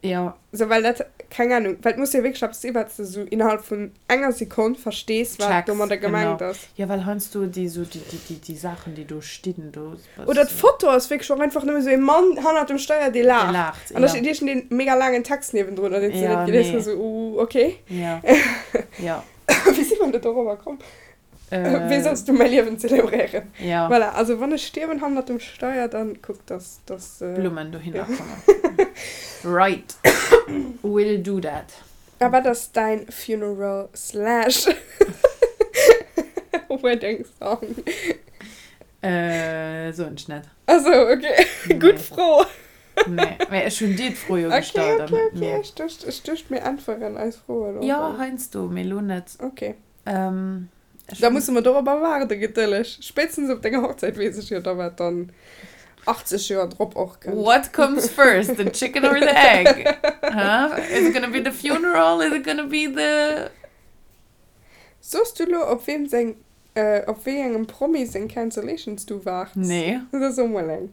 B: Jo.
A: Sou, well dat, keng Ahnung, well et muss jo wierklech eppes sinn, wat s de sou innerhalb vun enger Sekonn verstees, wat
B: Checks,
A: domadder
B: genau.
A: gemengt ass.
B: Jo, well heiansdo déi sou, déi, déi, déi, déi Saachen, déi do stinn, do
A: Oder
B: bass du.
A: d'Foto ass wierklech och einfach nëmme sou ee Mann hannert dem Steier, dee
B: Dee
A: laacht.
B: laacht,
A: An da
B: jo.
A: steet iergendeen mega laangen Text niewendrun, deen s de
B: Jo,
A: net gelies
B: nee.
A: hues, sou, uh, okay.
B: Jo, jo.
A: Wéi si mer do dorobber komm? Wéi solls du mäi Liewen zelebréieren?
B: Ja.
A: Voilà, also wann ech stierwen hannert dem Steier, dann kuck, dass, dass.
B: Blummen dohinner kommen. Right. Will do that.
A: A wat ass däin Funeral slash Wedding Song?
B: Soen ech net.
A: Ah sou, ok. Gutt Fro.
B: Nee, mä ech hunn dir d'Fro jo gestallt an net mir.
A: Ok, ok, ok. Ech duecht, ech duecht mir äntweren eis Froen och.
B: Jo, heiansdo, mee elo net.
A: Ok.
B: Ähm, ech
A: Da musse mer dorobber waarden, gedëlleg. Spéitstens op denger Hochzäit weess ech jo da, wat dann 80 Joer drop och kënnt.
B: What comes first, the chicken or the egg? Huh? Is it gonna be the funeral? Is it gonna be the.
A: Soos du lo, op weem seng, op wéi engem Promi seng Cancellations du waarts?
B: Nee.
A: Da so mol eng.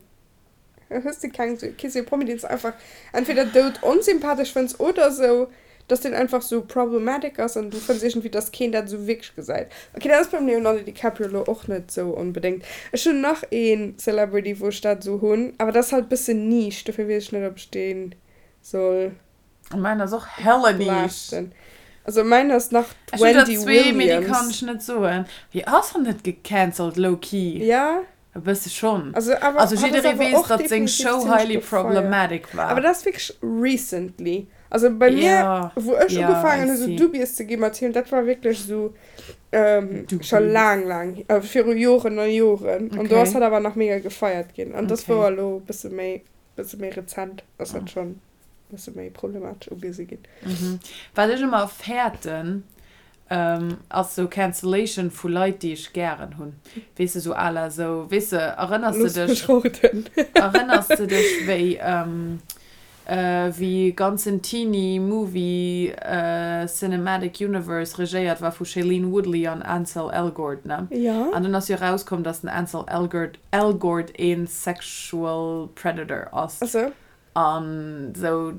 A: Hues de keng, kee sou Promi deen s de einfach entweder doud onsympathesch fënns oder sou dass deen einfach sou problematic ass an du fënns iergendwéi dass keen dat sou wierklech gesäit. Ok dat ass beim Leonardo DiCaprio lo och net sou onbedéngt. Ech hunn nach een Celebrity wou ech dat sou hunn, awer dat ass halt bëssen Niche, dofir weess ech net ob ech deen soll.
B: Mäin ass och hella niche.
A: Blasten. Also mäin ass nach
B: Ech hunn der
A: d'Wendy
B: zwee, mee déi kann
A: Williams.
B: ech net soen. Wéi ass hatt net gecancelt low-key?
A: Ja.
B: E bësse schonn.
A: Also awer
B: Also
A: hatt ass
B: jidderee
A: awer
B: weess,
A: och
B: datt seng
A: definitiv
B: Show
A: zimmlech
B: highly
A: gefeiert.
B: problematic
A: Awer
B: war.
A: dat ass wierklech recently. Also bei mir,
B: Ja,
A: wou ech
B: ja, I
A: ugefaangen hu sou
B: see.
A: dubious ze gi mat him, dat war wierklech sou scho
B: Dubious.
A: laang, laang, viru Joren a Joren. An do ass
B: Okay.
A: hatt awer nach mega gefeiert ginn. An dass
B: Okay.
A: wor elo e bësse méi, bësse méi rezent ass dat schonn. Bësse méi problematesch ugesi ginn.
B: Wat ech ëmmer fäerten, ass sou Cancellation vu Leit, déi ech gären hunn. Weess de, sou à la sou, weess de, erënners de
A: Looss
B: dech,
A: mech roden.
B: erënners de dech wéi, wéi ganzen Teenie Movie Cinematic Universe regéiert war vu Shailene Woodley an Ansel Elgort, ne?
A: Jo.
B: An dunn ass jo erauskomm, dass den Ansel Elgort, Elgort een Sexual Predator ass.
A: Ach sou.
B: An sou,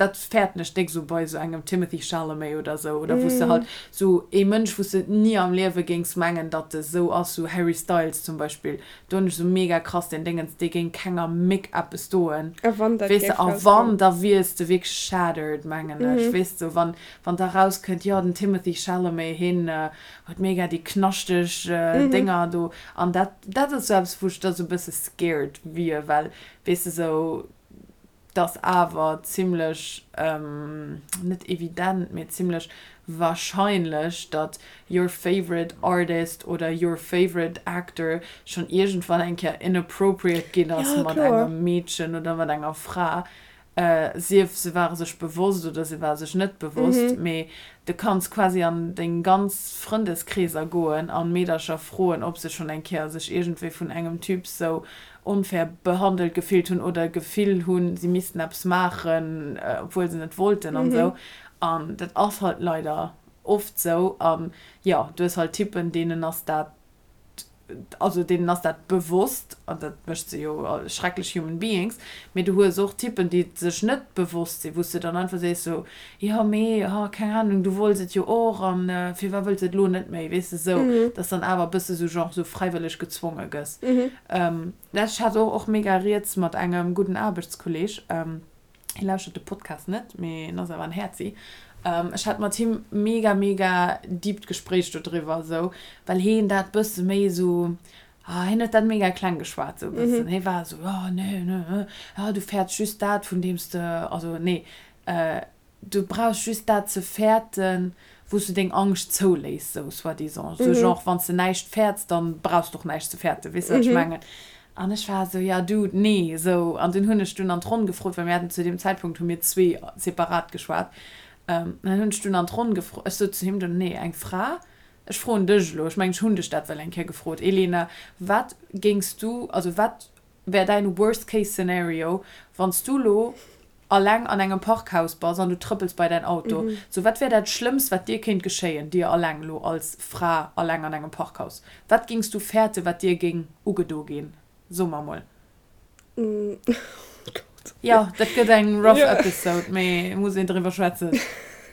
B: dat fäerten ech déck sou bei sou engem Timothée Chalamet oder sou, oder wou s de halt sou ee Mënsch, wou s de ni am Liewe géings mengen, datt e sou ass, sou Harry Styles zum Beispill, do hunn ech sou mega krass deen Déngens, dee géing kenger Méck eppes doen,
A: A wann dat
B: weess de,
A: géif
B: a
A: rauskommen.
B: wann, da wiers de wierklech shattered, mengen ech, weess de, wann, wann da rauskënnt, jo, den Timothée Chalamet, hien huet mega déi knaschteg Dénger do, an dat, dat ass sou eppes, wou ech da sou e bësse scared wier, well Weess de, sou dass awer zimlech, net evident, mee zimlech wahrscheinlech, datt your favorite artist oder your favorite actor schonn iergendwann eng Kéier inappropriate ginn ass
A: Ja,
B: mat
A: kloer.
B: engem Meedchen oder mat enger Fra. Sief se ware sech bewosst oder se ware sech net bewosst, mee du kanns quasi an deng ganz Frëndeskreeser goen an Meedercher froen, ob se schonn eng Kéier sech iergendwéi vun engem Typ sou onfair behandelt gefillt hunn oder d'Gefill hunn, si missten eppes maachen, obwuel se net wollten an esou. An dat ass halt leider oft sou. An jo, du hues halt Typen, deenen ass dat, also deenen ass dat bewosst, an dat mécht se jo schrecklech human beings, mee du hues och Typen, déi sech net bewosst sinn, wou s de dann einfach sees sou, jo mee, ha keng Ahnung, du wollts et jo och an firwat wëlls de et elo net méi, weess de, sou, dass dann awer e bësse sou genre sou fräiwëlleg gezwonge gëss. Ech hat och mega rieds mat engem gudden Aarbechtskolleg, Hie lauschtert de Podcast net, mee en ass awer en Häerzi. Ech hat mat him mega, mega deept Gespréich dodriwwer esou, well heen dat bësse méi esou, ah, hien huet dat mega kleng geschwat esou e bëssen. Hie war esou, jo, nee, nee, ah, du fäerts just dat, vun deem s de, also nee, du brauchs just dat ze fäerten, wou s du deng Angscht zouléiss, sou soi-disant. Sou genre, wann s de näischt fäerts, dann brauchs de och näischt ze fäerten, weess de, wat ech mengen? An ech war esou, ja Dude, nee, sou. An dunn hunn ech dunn an d'Ronn gefrot, well mir haten zu deem Zäitpunkt hu mir zwee separat geschwat, an dann hunn ech dunn an d'Ronn gefrot, ech sot zu him dunn, nee, eng Fra, ech froen dech elo, ech mengen, ech hunn dech dat well eng Kéier gefrot, Elena, wat géings du, also wat wär däin worst case scenario, wann s du lo alleng an engem Parkhaus bass an du trëppels bei däin Auto? Sou, wat wär dat Schlëmmst, wat dir kéint geschéien, dir alleng lo als Fra alleng an engem Parkhaus? Wat géings du fäerte, wat dir géing ugedo ginn? So mer mol.
A: Oh Gott.
B: Jo, dat gëtt eng rough episode, mee muss een driwwer schwätzen.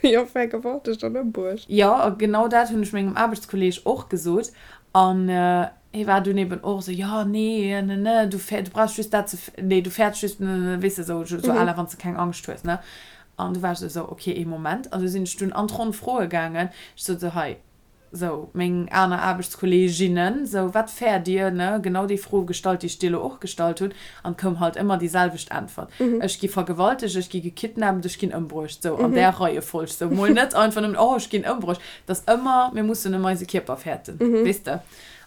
A: Jo, vergewaltegt an ëmbruecht.
B: Jo, a genau dat hunn ech mengem Aarbechtskolleeg och gesot. An hie war dunn eben och esou, jo, nee, ne, ne, du fäer, du brauchs just dat ze, nee, du fäerts just, ne, ne, weess de, esou, esou à la wann s de keng Angscht hues, ne. An du war ech esou, ok, ee Moment. An du sinn ech dunn an d'Ronn froe gaangen. Ech sot esou, hei, Sou, meng aner Aarbechtskolleeginnen, sou, wat fäert Dir, ne? Genau déi Fro gestallt, déi ech dir elo och gestallt hunn, an et koum halt ëmmer déi selwecht Äntwert, Ech gi vergewaltegt, ech gi gekidnappt, ech ginn ëmbruecht. Sou, an där Reiefolg. Sou, mol net einfach nëmmen, oh, ech ginn ëmbruecht. Et ass ëmmer, mir mussen ëm eise Kierper fäerten, weess de?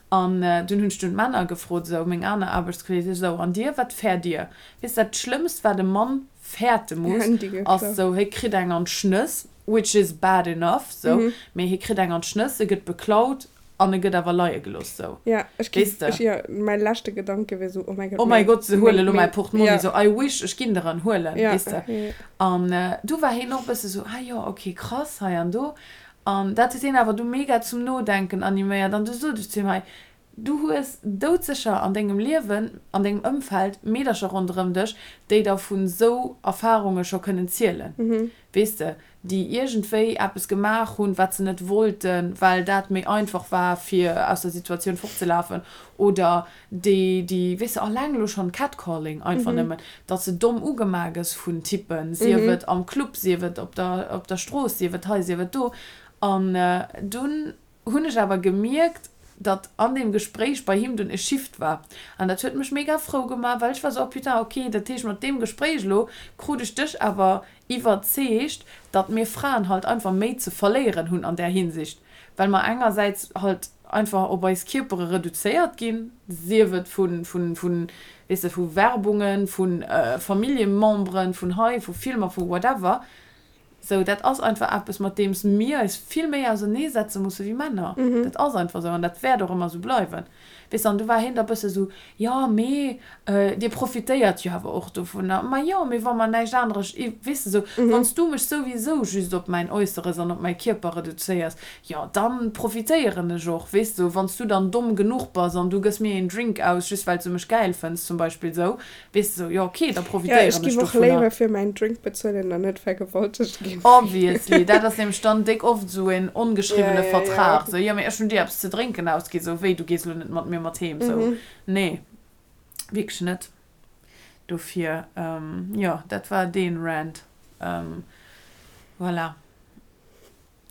B: An dunn hunn ech dunn d'Männer gefrot, sou, meng aner Aarbechtskolleegen, sou, an dir, wat fäert Dir? Weess de, dat Schlëmmst, wat e Mann fäerte muss, ass sou, hie kritt eng an d'Schnëss, which is bad enough, sou, mee hie kritt eng an d'Schnëss, e gëtt beklaut an e gëtt awer leie gelooss, sou.
A: Ja, ech gi, ech, jo, mäi leschte Gedanke wier sou, oh mäi
B: Gott, oh mäi Gott, se huele lo mäi Portmonni, sou, I wish, ech ginn der en huelen, weess de. An du war hien och e bësse sou, ah jo, ok, krass, hei an do. An dat huet hien awer du mega zum Nodenken animéiert an du sot ech zu him, hei, Du hues doudsécher an dengem Liewen, an dengem Ëmfeld Meedercher ronderëm dech, déi der vun esou Erfarunge scho kënnen zielen, weess de, déi iergendwéi eppes gemaach hunn, wat se net wollten, well dat méi einfach war, fir aus der Situatioun fortzelafen, oder déi, déi, weess de, alleng elo schonn Catcalling einfach nëmmen, datt s de domm ugemaach gëss vun Typpen, sief et am Club, sief et op der, op der Strooss, sief et hei, sief et do. An dunn hunn ech awer gemierkt, datt an deem Gespréich bei him dunn e Shift war. An dat huet mech mega frou gemaach, well ech war sou, oh putain, ok, dat heescht mat deem Gespréich elo krut ech dech awer iwwerzeegt, datt mir Fraen halt einfach méi ze verléieren hunn an där Hinsicht, well mer engersäits halt einfach op eis Kierpere reduzéiert ginn, sief et vu, vu, vu, weess de, vu Werbungen, vu Familljememberen, vun hei, vu Filmer, vu whatever. Sou, dat ass einfach eppes, mat deems mir eis vill méi auserneesetze musse wéi Männer. Dat ass einfach esou an dat wäert och ëmmer esou bleiwen. Weess de, an du war hien da bësse sou, jo, mee dir profitéiert jo awer och dovunner. Ma jo, mee wa mer näischt aneres, weess de, sou, wann s du mech souwisou just op mäin Äusseres an op mäi Kierper reduzéiers, jo, da profitéieren ech och, weess de, wann s du dann domm genuch bass an du gëss mir een Drink aus, just well s du mech gäil fënns zum Beispill, sou, Weess de sou, jo ok, da
A: Ja, ech
B: profitéieren ech
A: giff och
B: dovunner.
A: léiwer fir mäin Drink bezuelen an net vergewaltegt ginn.
B: Obviously, dat ass nämlech dann déck oft esou een
A: Ja,
B: ongeschriwwene
A: ja, ja.
B: Vertrag, sou, jo mee ech hunn dir eppes ze drénken ausgi, sou wéi, du gees elo net mat mir mat heem, sou, nee, wierklech net. Dofir, jo, dat war deen Rant, voilà.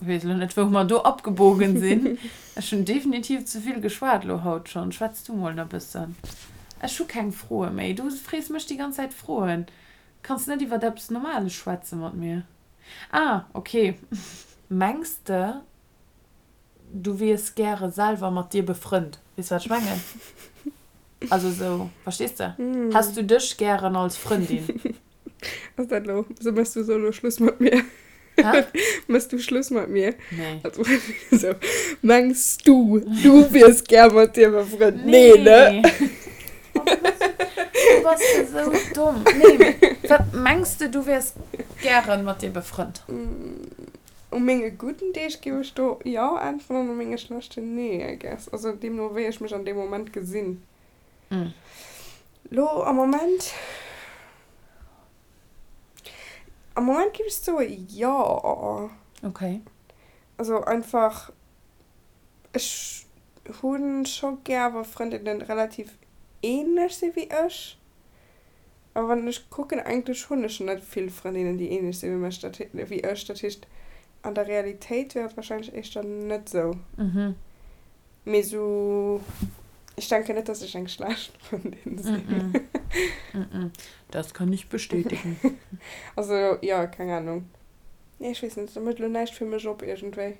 B: Weess elo net wou mer do abgebogen sinn. Ech hunn definitiv ze vill geschwat elo haut schonn. Schwätz du mol na bëssen. Ech hu keng Froe méi. Du frees mech déi ganz Zäit Froen. Kanns net iwwert eppes Normales schwätze mat mir. Ah, ok. Mengs de du wiers gäre selwer mat dir befrënnt? Weess wat ech mengen? Also esou, verstees de? Häss du dech gären als Frëndin?
A: Ass dat lo, so mëss du so lo Schluss mat mir?
B: Hä?
A: Mëss du Schluss mat mir?
B: Nee.
A: Also, so, mengs du, du wiers gär mat dir befrënnt? Nee, ne?
B: Oh, du bass, du bass esou domm. Nee, mee wat, mengs de, du wiers gären mat dir befrënnt?
A: U menge gudden Deeg géif ech do jo äntweren an u menge schlechten nee, I guess. Also deemno wéi ech mech an deem Moment gesinn. Lo am Moment, am Moment géif ech soe jo.
B: Okay.
A: Also einfach, ech hu scho gär wa Frëndinnen relativ ähnlech si wéi ech. Awer wann ech kucken, eigentlech hunn ech net vill Frëndinnen déi ähnlech si wéi mech, dat wéi ech. Dat heescht an der Realitéit wier et wahrscheinlech éischter net sou. Mee sou, ech denken net, dass ech eng schlecht Frëndin
B: sinn. Das kann ich bestätigen.
A: Also, jo, keng Ahnung. Nee, ech weess net, dat mécht elo näischt fir mech op iergendwéi.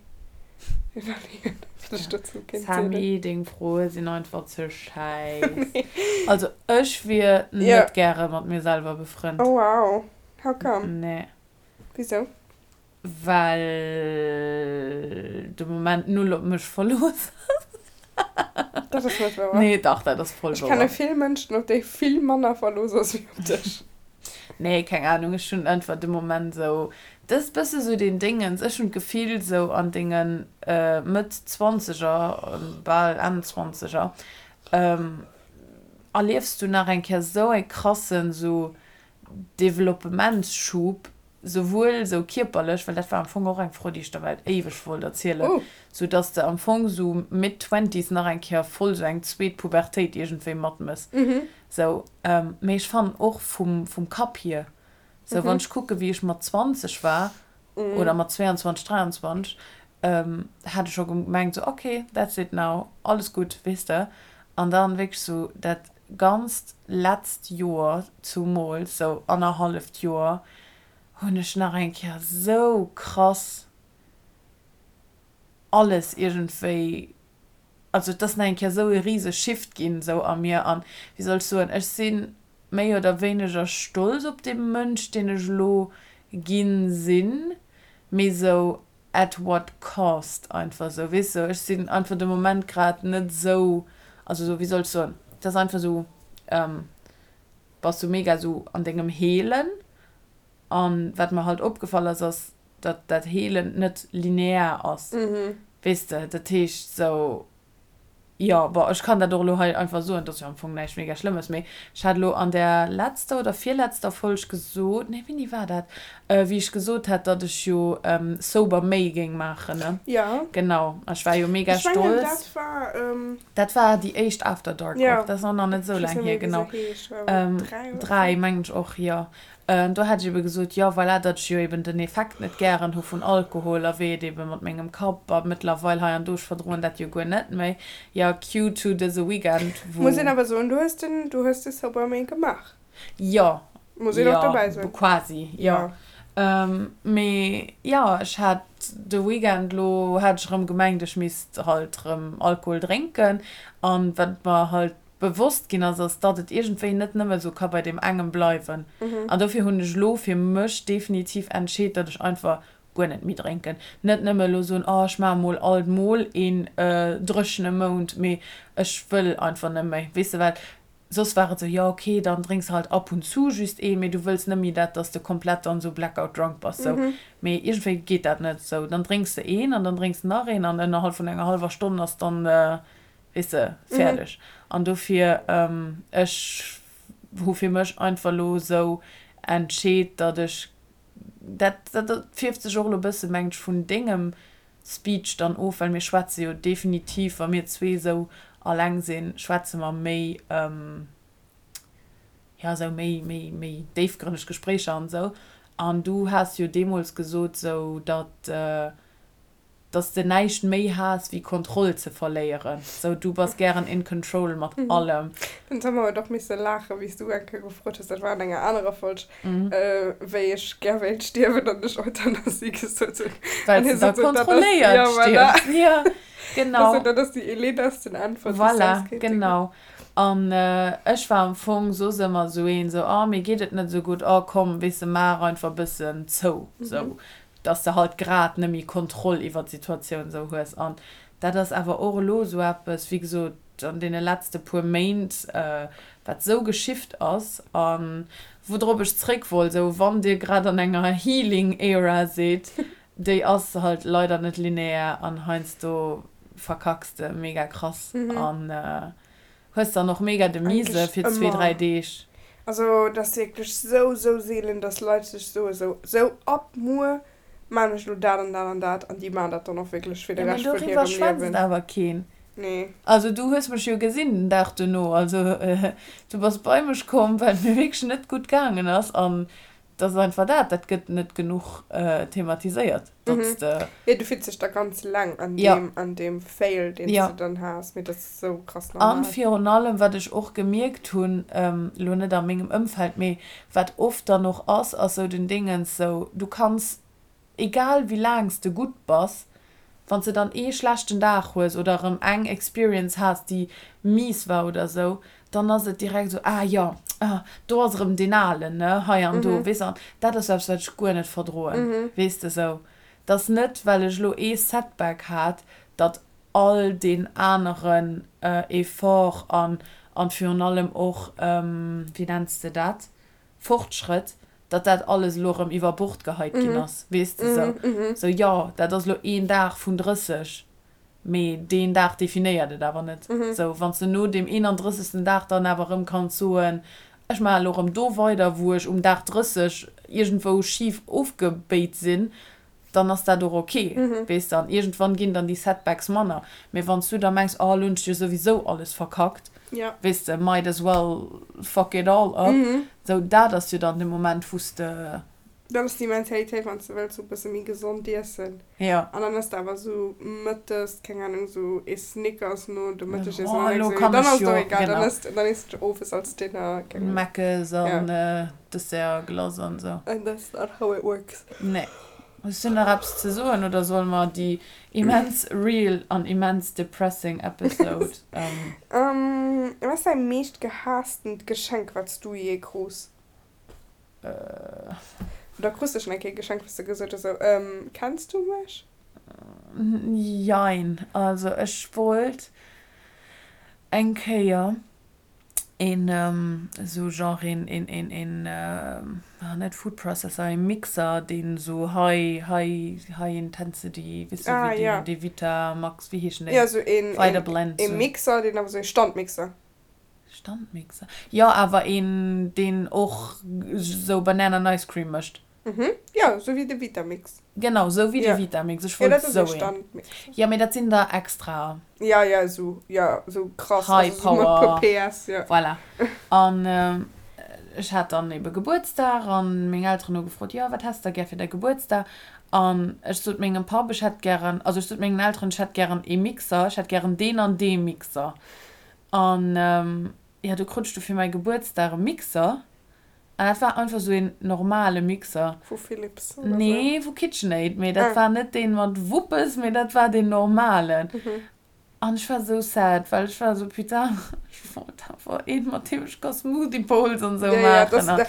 A: Iwwerleeën, wat ech dozou kéint zielen.
B: Sammy, deng Froe sinn einfach ze schäiss. Also, ech wier net gäre mat mir selwer befrënnt.
A: Oh wow, how come?
B: Nee.
A: Wisou?
B: Well de Moment null op mech verlooss ass.
A: Dat ass net wouer.
B: Nee, dach, dat ass voll
A: Ech kenne
B: wouer.
A: vill Mënschen, op déi vill manner verlooss ass wéi op dech.
B: Nee, keng Ahnung, ech hunn einfach de Moment esou, dat ass bësse sou deen Déngens, ech hunn d'Gefill sou an denge Mëtt Zwanzeger, bal Enn Zwanzeger, erliefs du nach eng Kéier sou e krassen sou. Developpementsschub, souwuel sou kierperlech, well dat war am Fong och eng Fro, déi ech der well éiweg wollt erzielen, sou dass de am Fong sou mid-twenties nach eng Kéier voll sou eng zweet Pubertéit iergendwéi matmëss, sou. Mee ech fannen och vum, vum Kapp hier, sou wann ech kucke wéi ech mat 20 war oder mat 22, 23, hat ech scho gemengt sou ok, that's it now, alles gutt, weess de. An dann wierklech sou dat ganzt letzt Joer, zumools sou annerhalleft Joer, hunn ech nach eng Kéier sou krass alles iergendwéi, also et ass nach eng Kéier sou e rise Shift ginn sou a mir an, wéi soll ech soen, ech si méi oder wéineger stolz op dee Mënsch, deen ech elo ginn sinn, mee sou at what cost einfach sou, weess de, ech sinn einfach de Moment grad net sou, also sou, wéi soll ech soen, et ass einfach sou, bass du mega sou an dengem Heelen an wat mer halt opgefall ass, ass datt dat Heelen net linear ass, weess de, dat heescht sou, Jo, bon, ech kann dat och elo hei einfach soen, et ass jo am Fong näischt mega Schlëmmes, mee ech hat elo an där letzter oder virletzter Folg gesot, nee, wéini war dat, wéi ech gesot hat, datt ech jo Sober May géing maachen, ne?
A: Jo.
B: Genau, a ech war jo mega
A: Ech mengen,
B: stolz.
A: dat war.
B: Dat war déi éischt After Dark och, dat ass och nach net esou
A: Ech weess
B: laang
A: net
B: hier,
A: méi, wéi
B: genau.
A: se heescht, war awer 3 oder
B: 3,
A: 4.
B: mengen ech och, jo. Do hat ech ebe gesot, jo voilà, datt ech jo eben den Effekt net gären hu vun Alkohol a wéi et ebe mat mengem Kapp a mëttlerweil hei an do, ech verdroen dat jo guer net méi, jo cue to dëse Weekend,
A: Muss een
B: wou.
A: awer soen, du hues den, du hues de Sober May gemaach.
B: Jo,
A: Muss een och
B: jo,
A: dobäi soen.
B: quasi, jo.
A: Jo.
B: Mee jo, ech hat de Weekend elo, hat ech erëm gemengt, ech misst halt erëm Alkohol drénken an wat mer halt bewosst ginn ass, ass datt et iergendwéi net nëmme sou ka bei deem engem bleiwen. An dofir hunn ech elo fir mech definitiv entscheet, datt ech einfach guer net méi drénken. Net nëmme elo soen, oh ech maache mol alt mol een dréchene Mount, mee ech wëll einfach net méi. Weess de, well soss war et sou, jo ok, dann drénks de halt ab und zu just een, mee du wëlls net méi dat, datt s de komplett dann sou blackout drunk bass sou. Mee iergendwéi geet dat net sou. Dann drénks de een an dann drénks de nach een an ënnerhalb vun enger hallwer Stonn ass dann weess de, fäerdeg. An dofir, ech hu fir mech einfach elo esou entscheet, datt ech, dat, dat fierft sech och elo e bësse mengt ech vun dengem Speech dann of, well mir schwätze jo definitiv, wa mir zwee esou alleng sinn, schwätze mer méi, jo, esou méi, méi, méi déifgrënneg Gespréicher an esou. An du has jo deemools gesot esou, datt, Dass de näischt méi haass wéi Kontroll ze verléieren. Sou, du bass gären in control mat allem.
A: Den Tom huet och misse laachen, wéi s du eng Kéier gefrot hues, dat war an enger anerer Folg, wéi ech gär wéilt stierwen an ech Euthanasie gesot hunn.
B: Well s de da kontrolléiert stierfs. Ja, genau.
A: Also, dat ass déi eledersten Äntwert, déi s
B: Voilà,
A: soss kéinte ginn.
B: genau. An ech war am Fong soss ëmmer sou een, sou, oh, mir geet et net sou gutt, oh komm, weess de, maach einfach e bëssen zou, sou. dass de halt grad net méi Kontroll iwwer d'Situatioun esou hues an dat ass awer och elo esou eppes, wéi gesot, an deene letzte puer Méint, wat esou geshift ass a woudrop ech zréck wollt, esou wann Dir grad an enger Healing Era sidd, déi ass halt leider net linear an heiansdo verkacks de mega krass an Hues dann och mega de Mise
A: Eigentlich
B: fir zwee, dräi
A: ëmmer.
B: Deeg.
A: Also et ass wierklech sou, sou seelen, dass Leit sech soe sou, sou ab muer maan ech lo dat an dat an dat an déi maan dat dann och wierklech fir de
B: Jo, mee
A: Rescht vun
B: doriwwer
A: hirem
B: schwätzt
A: Liewen.
B: awer keen.
A: Nee.
B: Also du hues mech jo gesinn den Dag duerno. Also du bass bei mech komm, well et mir wierklech net gutt gaangen ass an Et ass einfach dat, dat gëtt net genuch thematiséiert, datt s de.
A: Jo, du fills dech da ganz eleng an
B: Jo.
A: deem, an deem Fail, deen s
B: Jo.
A: de dann has, mee dat ass esou krass
B: An
A: normal.
B: virun allem, wat ech och gemierkt hunn, elo net a mengem Ëmfeld, mee wat oft dann och ass, ass sou den Dingens, sou du kanns Egal wéi laang s de gutt bass, wann s de dann ee schlechten Dag hues oder erëm eng Experience has, déi mies war oder sou, dann ass et direkt sou, ah jo, ah do ass erëm deen Alen, ne, hei an do, weess de. An dat ass eppes, wat ech guer net verdroen, weess de, sou dass net, well ech elo ee Setback hat, datt all deen aneren Effort an an virun allem och, wéi nenns de dat, Fortschrëtt, datt dat alles elo erëm iwwer Bord geheit ginn ass, weess de, sou. Sou, jo, dat ass elo een Dag vun 30, mee deen Dag definéiert et awer net. Sou, wann s de no deem 31. Dag dann awer erëm kanns soen, Ech maachen elo erëm do weider, wou ech um Dag 30 iergendwou schif ofgebéit sinn, dann ass dat och ok, weess de. An iergendwann ginn dann déi Setbacks manner. Mee wann s du da mengs, oh, elo hunn ech jo souwisou alles verkackt, weess de, might as well fuck it all up, sou, dat ass jo dann de Moment, wou s de.
A: Dat ass déi Mentalitéit, wann s de wëlls sou e bësse méi gesond iessen.
B: Jo.
A: An dann ëss de awer sou mëttes, keng Ahnung, sou ee Snickers no dem Mëttegiessen
B: Oh,
A: an
B: elo
A: denkst du,
B: kann
A: dann
B: ech
A: ass et
B: jo,
A: och egal, dann
B: genau.
A: ëss de, dann ëss de owes als Dinner, keng Ahnung.
B: Meckes an
A: Ja.
B: Dessertglace an sou.
A: And that's not how it works.
B: Nee. Hues du nach eppes ze soen oder solle mer déi immens real an immens depressing Episode.
A: Wat ass däi meescht gehaastent Geschenk, wat s du jee krus? Oder krus de schon eng Kéier e Geschenk, wou s de gesot hues, sou, Kenns du mech?
B: Jein. Also ech wollt eng Kéier een esou genre een, een, een, een, net Food Processor, ee Mixer, deen esou high, high, high intensity, weess du, wéi deen, dee Vitamax, wéi heeschen déi?
A: Jo, sou een,
B: Vitablend,
A: ee Mixer, deen awer sou ee Standmixer.
B: Standmixer? Jo, awer een, deen och sou Banana and Ice Cream mécht.
A: Mhm, jo, sou wéi de Vitamix.
B: Genau, sou wéi de Vitamix. Ech wollt sou een. Jo, mee dat sinn der extra.
A: Jo, jo, sou, jo, sou krass.
B: High
A: Power. Also sou mat
B: PS, jo. Voilà. An ech hat dann ebe Gebuertsdag an meng Elteren hu gefrot, jo, wat häss de da gär fir däi Gebuertsdag? An ech sot mengem Papp, ech hätt gären, also ech sot mengen Elteren, ech hätt gären ee Mixer, ech hätt gären deen an dee Mixer. An jo, du krut ech du fir mäi Gebuertsdag e Mixer. An dat war einfach sou een normale Mixer.
A: Vu Philips
B: oder sou? Nee, vu KitchenAid, mee dat war net deen mat Wuppes, mee dat war deen normalen. An ech war sou sad, well ech war sou, putain, ech wollt awer een, mat deem ech ka Smoothie Bowls an sou maachen.
A: An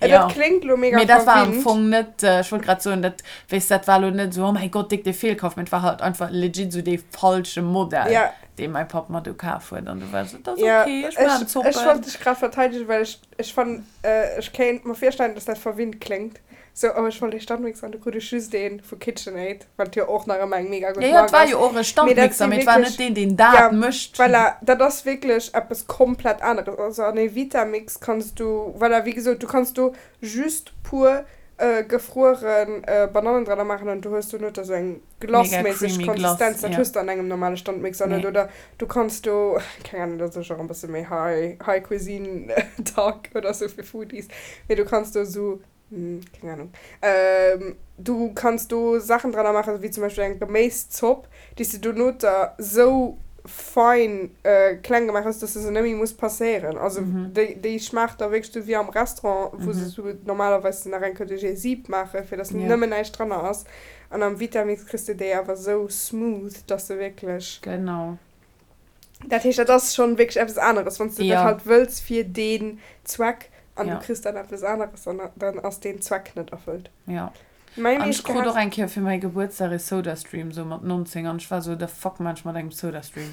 A: jo, dat kléngt lo mega
B: mee dat war am
A: verwinnt.
B: Fong net, ech wollt grad soen, dat, weess, dat war lo net sou, oh mäi Gott, déck dee Feelkaf, mee et war halt einfach legit sou dee falsche Modell. Dee mäi Papp mer du kaf huet an du war sou, et ass
A: Ja,
B: ok, ech maachen
A: ech, ech
B: Zoppen.
A: wollt dech grad verteidegen, well ech, ech fannen, ech kéint mer virstellen, dass dat verwinnt kléngt. Sou, oh ech wollt ee Standmixer an du krut ech just ee vu KitchenAid, wat jo och nach ëmmer eng mega
B: Ja,
A: gutt
B: ja, et
A: Mark
B: war
A: ass.
B: jo och e
A: Mee dat
B: Standmixer,
A: si
B: mee et war net
A: wierklech,
B: deen, deen
A: ja,
B: dat mécht.
A: voilà, dat ass wierklech eppes komplett aneres. Also an ee Vitamix kanns du, voilà, wéi gesot, du kanns do just pur gefrueren Banannen dranner maachen an du hues dono da sou eng
B: Mega
A: Glace-méisseg
B: creamy Glace,
A: Konsistenz, dat
B: ja.
A: hues de an engem normale Standmixer net.
B: Nee.
A: Oder du kanns do, keng Ahnung, dat ass och e bësse méi high, high cuisine talk oder sou fir Foodies, mee du kanns do sou, keng Ahnung, du kanns do Saachen dranner maachen, wéi zum Beispill eng Geméiszopp, déi s de dono da sou fein kleng gemaach hues, dass de se net méi muss passéieren. Also déi, déi schmaacht da wierklech sou wéi am Restaurant, wou se sou normalerweis nach eng Kéier duerch ee Sieb maachen, fir dass nëmmen näischt dranner ass. An am Vitamix kriss de déi awer sou smooth, dass se wierklech.
B: Genau.
A: Dat heescht, dat ass schonn wierklech eppes aneres, wann s de dat
B: Ja.
A: halt wëlls fir deen Zweck an du
B: Ja.
A: kriss dann eppes aneres, dann, dann ass deen Zweck net erfëllt.
B: Ja.
A: Mäi
B: An ech
A: meescht
B: krut och
A: gehaasst.
B: eng Kéier fir mäi Gebuertsdag ee Sodastream, sou mat 19, an ech war sou, the fuck man ech mat engem Sodastream?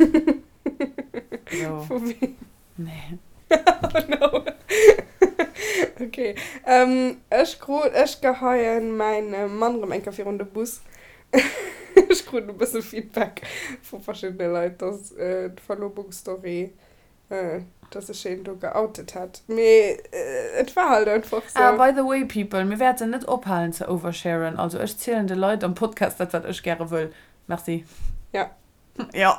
B: Sou.
A: Vu weem?
B: Nee.
A: Oh no. Ok. Ech krut, ech geheien mäin Mann rëm eng Kéier virun de Bus. Ech krut e bësse Feedback vu verschiddene Leit, dass d'Verlobungsstory, dass ech een do geoutet hätt. Mee et war halt einfach
B: Ah,
A: sou.
B: by the way people, mir wäerten net ophalen ze oversharen. Also ech zielen de Leit am Podcast dat wat ech gäre wëll. Merci.
A: Ja.
B: Jo.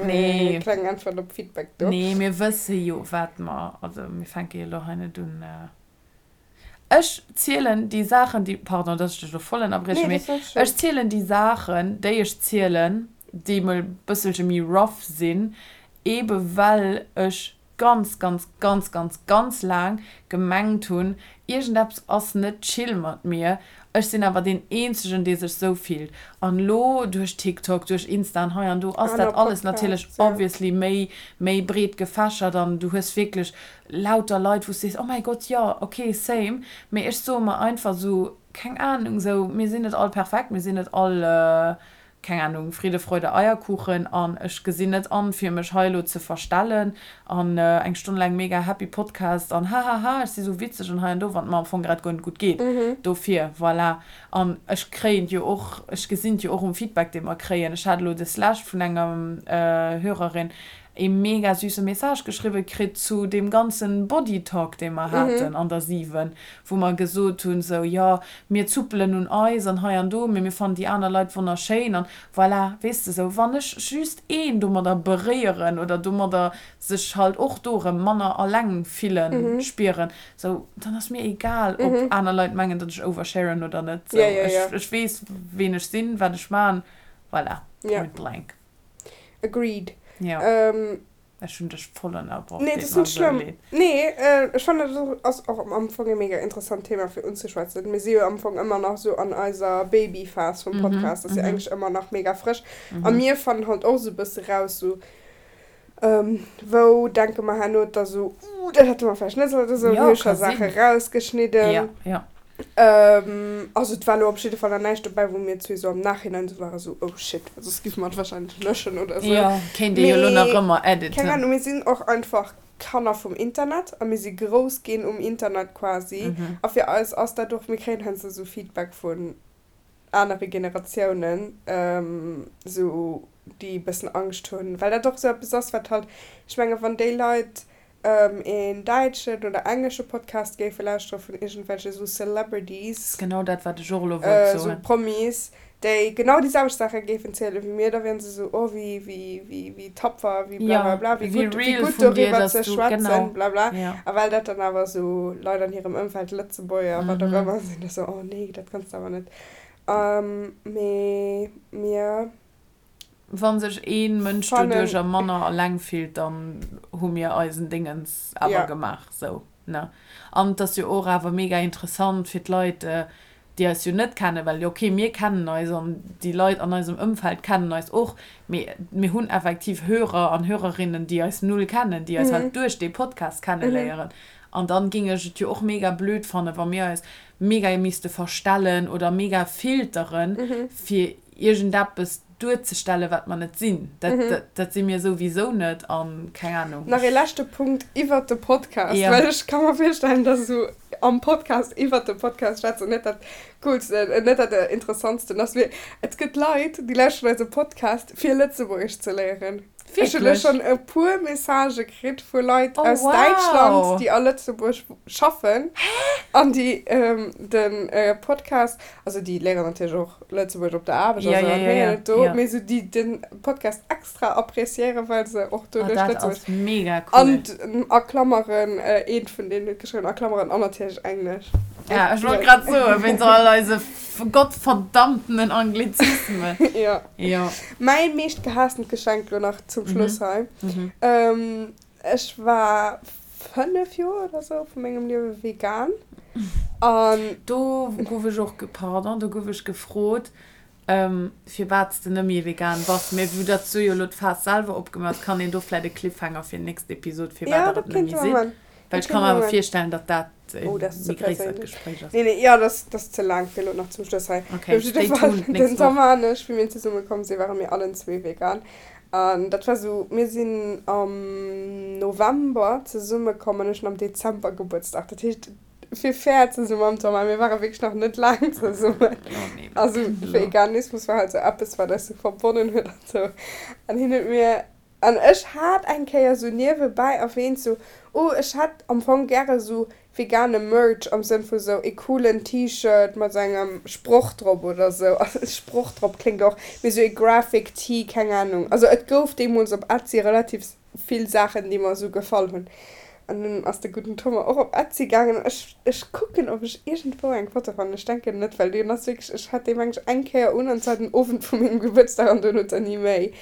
B: Nee.
A: Kleng Äntwert op Feedback do.
B: Nee, mir wësse jo, wat mer, also mir fänke jo elo hei net un. Ech zielen déi Saachen, déi, pardon, dass ech dech elo voll ënnerbriechen,
A: Nee,
B: mee
A: dat ass schonn.
B: ech zielen déi Saachen, déi ech zielen, déi mol e bësselche méi rough sinn, eebe well ech ganz, ganz, ganz, ganz, ganz laang gemengt hunn, iergendeppes ass net chill mat mir, ech sinn awer deen eenzegen, dee sech sou fillt. An elo duerch TikTok, duerch Insta an hei an do ass
A: Aner
B: dat alles natierlech
A: Podcasts, ja.
B: obviously méi, méi breet gefächert an du hues wierklech lauter Leit, wou s sees, oh mäi Gott, jo, ok, same. Mee ech soe mer einfach sou, keng Ahnung, sou, mir sinn net all perfekt, mir sinn net all keng Ahnung, Friede, Freude, Eierkuchen an ech gesinn net an, fir mech hei elo ze verstellen an eng Stonn laang mega happy Podcast an hahaha, ech si sou witzeg an hei an do, wann et mer am Fong grad guer net gutt geet. Dofir, voilà. An ech kréien et jo och, ech gesinn et jo och um Feedback, dee mer kréien. Ech hat elo des Lescht vun enger Hörerin. E mega süsse Message geschriwwe kritt zu deem ganzen Body Talk, dee mer haten an der 7, wou mer gesot hunn, sou, jo, mir zuppelen un eis an hei an do, mee mir fannen déi aner Leit wonnerschéin an voilà, weess de, sou, wann ech just een domadder beréieren oder domadder sech halt och do erëm manner alleng fillen, spieren, sou, dann ass mir egal, ob aner Leit mengen, datt ech oversharen oder net, sou, ech, ech weess, ween ech sinn, wat ech man, voilà, point blank.
A: Agreed.
B: Ja. Ech hunn dech voll ënnerbrach,
A: Nee,
B: deet
A: dat ass
B: mer
A: net
B: esou
A: schlëmm.
B: leed.
A: Nee, ech fannen dat ass och am Fong e mega interessant Thema fir unzeschwätzen. Mir si jo am Fong ëmmer nach esou an eiser Babyphas vum Podcast, ass jo eigentlech ëmmer nach mega frësch. A mir fannen halt och esou e bësse raus, esou wou denke mer herno da esou, uh, dat hätte mer vläicht net sollen oder esou,
B: Jo,
A: wou hu ech
B: ka
A: scho Saache
B: sinn.
A: rausgeschnidden.
B: Ja, ja.
A: Also et war elo op jidde Fall nach näischt dobäi, wou mir zwee sou am Nachhinein sou waren, sou oh shit, well soss géife mer et wahrscheinlech löschen oder sou.
B: Jo, kéint ee jo elo nach
A: Mee
B: ëmmer
A: keng
B: editen.
A: Ahnung, mir sinn och einfach Kanner vum Internet a mir si grouss ginn um Internet quasi. A fir eis ass dat och, mir kréien heiansdo sou Feedback vun anere Generatiounen, sou déi e bëssen Angscht hunn, well dat och sou eppes ass, wat halt, ech menge wann déi Leit een däitschen oder englesche Podcast géife lauschtere vun iergendwelche sou Celebrities,
B: Genau dat, wat ech och elo wollt
A: sou
B: soen.
A: Promis, déi genau déi selwecht Saache géifen ziele wéi mir, da wieren se sou, oh wéi, wéi, wéi, wéi tapfer, wéi
B: Ja,
A: blablabla, wéi
B: wéi
A: gutt, wéi
B: real
A: gutt
B: vun dir,
A: doriwwer
B: dass
A: ze
B: du,
A: schwätzen,
B: genau,
A: blabla.
B: ja.
A: A well dat dann awer sou Leit an hirem Ëmfeld, Lëtzebuerger, wat och ëmmer, sinn da sou, oh nee, dat kanns de awer net. Mee mir.
B: Wann sech een Mënsch
A: Fannen.
B: doduercher manner alleng fillt, dann hu mir eisen Dingens awer
A: Ja.
B: gemaach, sou, ne? An et ass jo och awer mega interessant fir d'Leit, déi eis jo net kennen, well ok, mir kennen eis an déi Leit an eisem Ëmfeld kennen eis och, mee mir hunn effektiv Hörer an Hörerinnen, déi eis null kennen, déi eis halt duerch dee Podcast kenneléieren. An dann géing ech et jo och mega blöd fannen, wa mir eis mega misste verstellen oder mega filteren, fir iergendeppes duerzestellen, wat mer net sinn. Dat, dat, dat si mir souwisou net an keng Ahnung.
A: Nach ee leschte Punkt iwwert de Podcast,
B: Ja.
A: well ech ka mer virstellen, dass esou am Podcast iwwert de Podcast schwätzen net dat coolsten, net dat interessantsten ass. Mee et gëtt Leit, déi lauschteren eise Podcast, fir Lëtzebuergesch ze léieren. Ech hunn elo
B: Wierklech?
A: schonn e puer Messagë kritt vu Leit
B: Oh,
A: aus Däitschland,
B: wow!
A: déi a Lëtzebuerg schaffen an déi de Podcast, also déi léieren natierlech och Lëtzebuerg op der Aarbecht,
B: Ja,
A: also
B: ja,
A: an
B: ja,
A: héieren
B: ja,
A: et do,
B: ja.
A: mee sou déi den Podcast extra appréciéieren, well se och
B: Ah,
A: doduerch
B: dat
A: Lëtzebuerg
B: ass mega cool.
A: An a Klammeren, eent vun deenen huet geschriwwen, a Klammeren, an natierlech Englesch.
B: Ja, ech wollt grad soen, wéinst all eise gottverdammtenen Anglizismen.
A: Ja.
B: Ja.
A: Mäi meescht gehaastent Geschenk lo nach zum Schluss hei. Ech war 5 Joer oder sou vu mengem Liewe vegan an.
B: Do gouf ech och, pardon, do gouf ech gefrot, firwat s de net méi vegan bass. Mee vu datt s du jo elo d'Faass selwer opgemaach hues, kann een do vläit e Cliffhanger fir nächst Episod, firwat
A: Ja,
B: der
A: dat
B: et net
A: kéinte
B: méi
A: mer
B: sidd.
A: man.
B: Well
A: Dat
B: ech ka
A: kéinte
B: mer
A: mer
B: awer
A: man.
B: virstellen, datt dat e
A: Oh, dat ass ze
B: méi gréissert
A: perséinlech.
B: Gespréich ass.
A: Nee, nee, jo, dat ass, dat ass ze laang fir elo nach zum Schluss hei.
B: Okay,
A: Op jidde
B: stay
A: Fall,
B: tuned
A: den
B: nächst Woch.
A: Thomas an ech, wéi mir zesumme komm sinn, ware mir allen zwee vegan. An dat war sou, mir sinn am November zesumme komm an ech hunn am Dezember Gebuertsdag. Dat heescht, fir fair ze si mam Thomas, mir ware wierklech nach net laang zesummen. Also Veganismus war halt sou eppes, wat eis sou verbonnen huet an sou. An hien huet mir, an ech hat eng Kéier sou niewebäi erwähnt, sou, oh ech hätt am Fong gäre sou Vegane Merch am Sënn vu sou ee coolen T-Shirt mat sou engem Sproch drop oder sou. Also Sproch drop kléngt och, mee sou ee Graphic Tee, keng Ahnung. Also et gouf deemools op Etsy relativ vill Saachen déi mer sou gefall hunn. An dunn ass de gudden Thomas och op Etsy gaangen. Ech ech kucken ob ech iergendwou eng Foto fannen. Ech denken net, well deen ass wierklech, ech hat dee meng ech eng Kéier un an zwar den Owend vu mengem Gebuertsdag an duerno dann ni méi.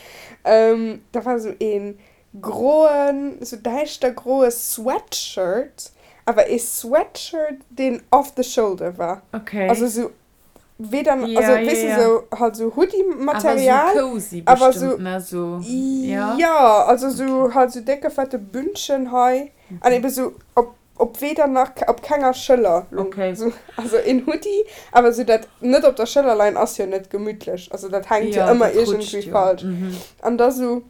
A: Da war sou een Groen, sou däischter groe Sweatshirt, awer ee Sweatshirt, deen off the shoulder war.
B: Okay.
A: Also sou weder,
B: Ja,
A: also
B: ja,
A: weess de,
B: ja.
A: sou halt sou
B: Awer sou
A: Hoodie-Material,
B: cozy
A: awer
B: bestimmt,
A: sou,
B: ne? Sou, ja?
A: jo, also sou
B: Okay.
A: halt sou décke fette Bündchen hei an
B: Mhm.
A: ebe sou op, op weder nach op kenger Schëller lung.
B: Okay.
A: Sou, also een Hoodie, awer sou dat net op der Schëller leien ass jo net gemütlech, also dat hänkt jo
B: Ja,
A: ëmmer
B: dat rutscht
A: iergendwéi
B: jo.
A: falsch.
B: Mhm.
A: An da sou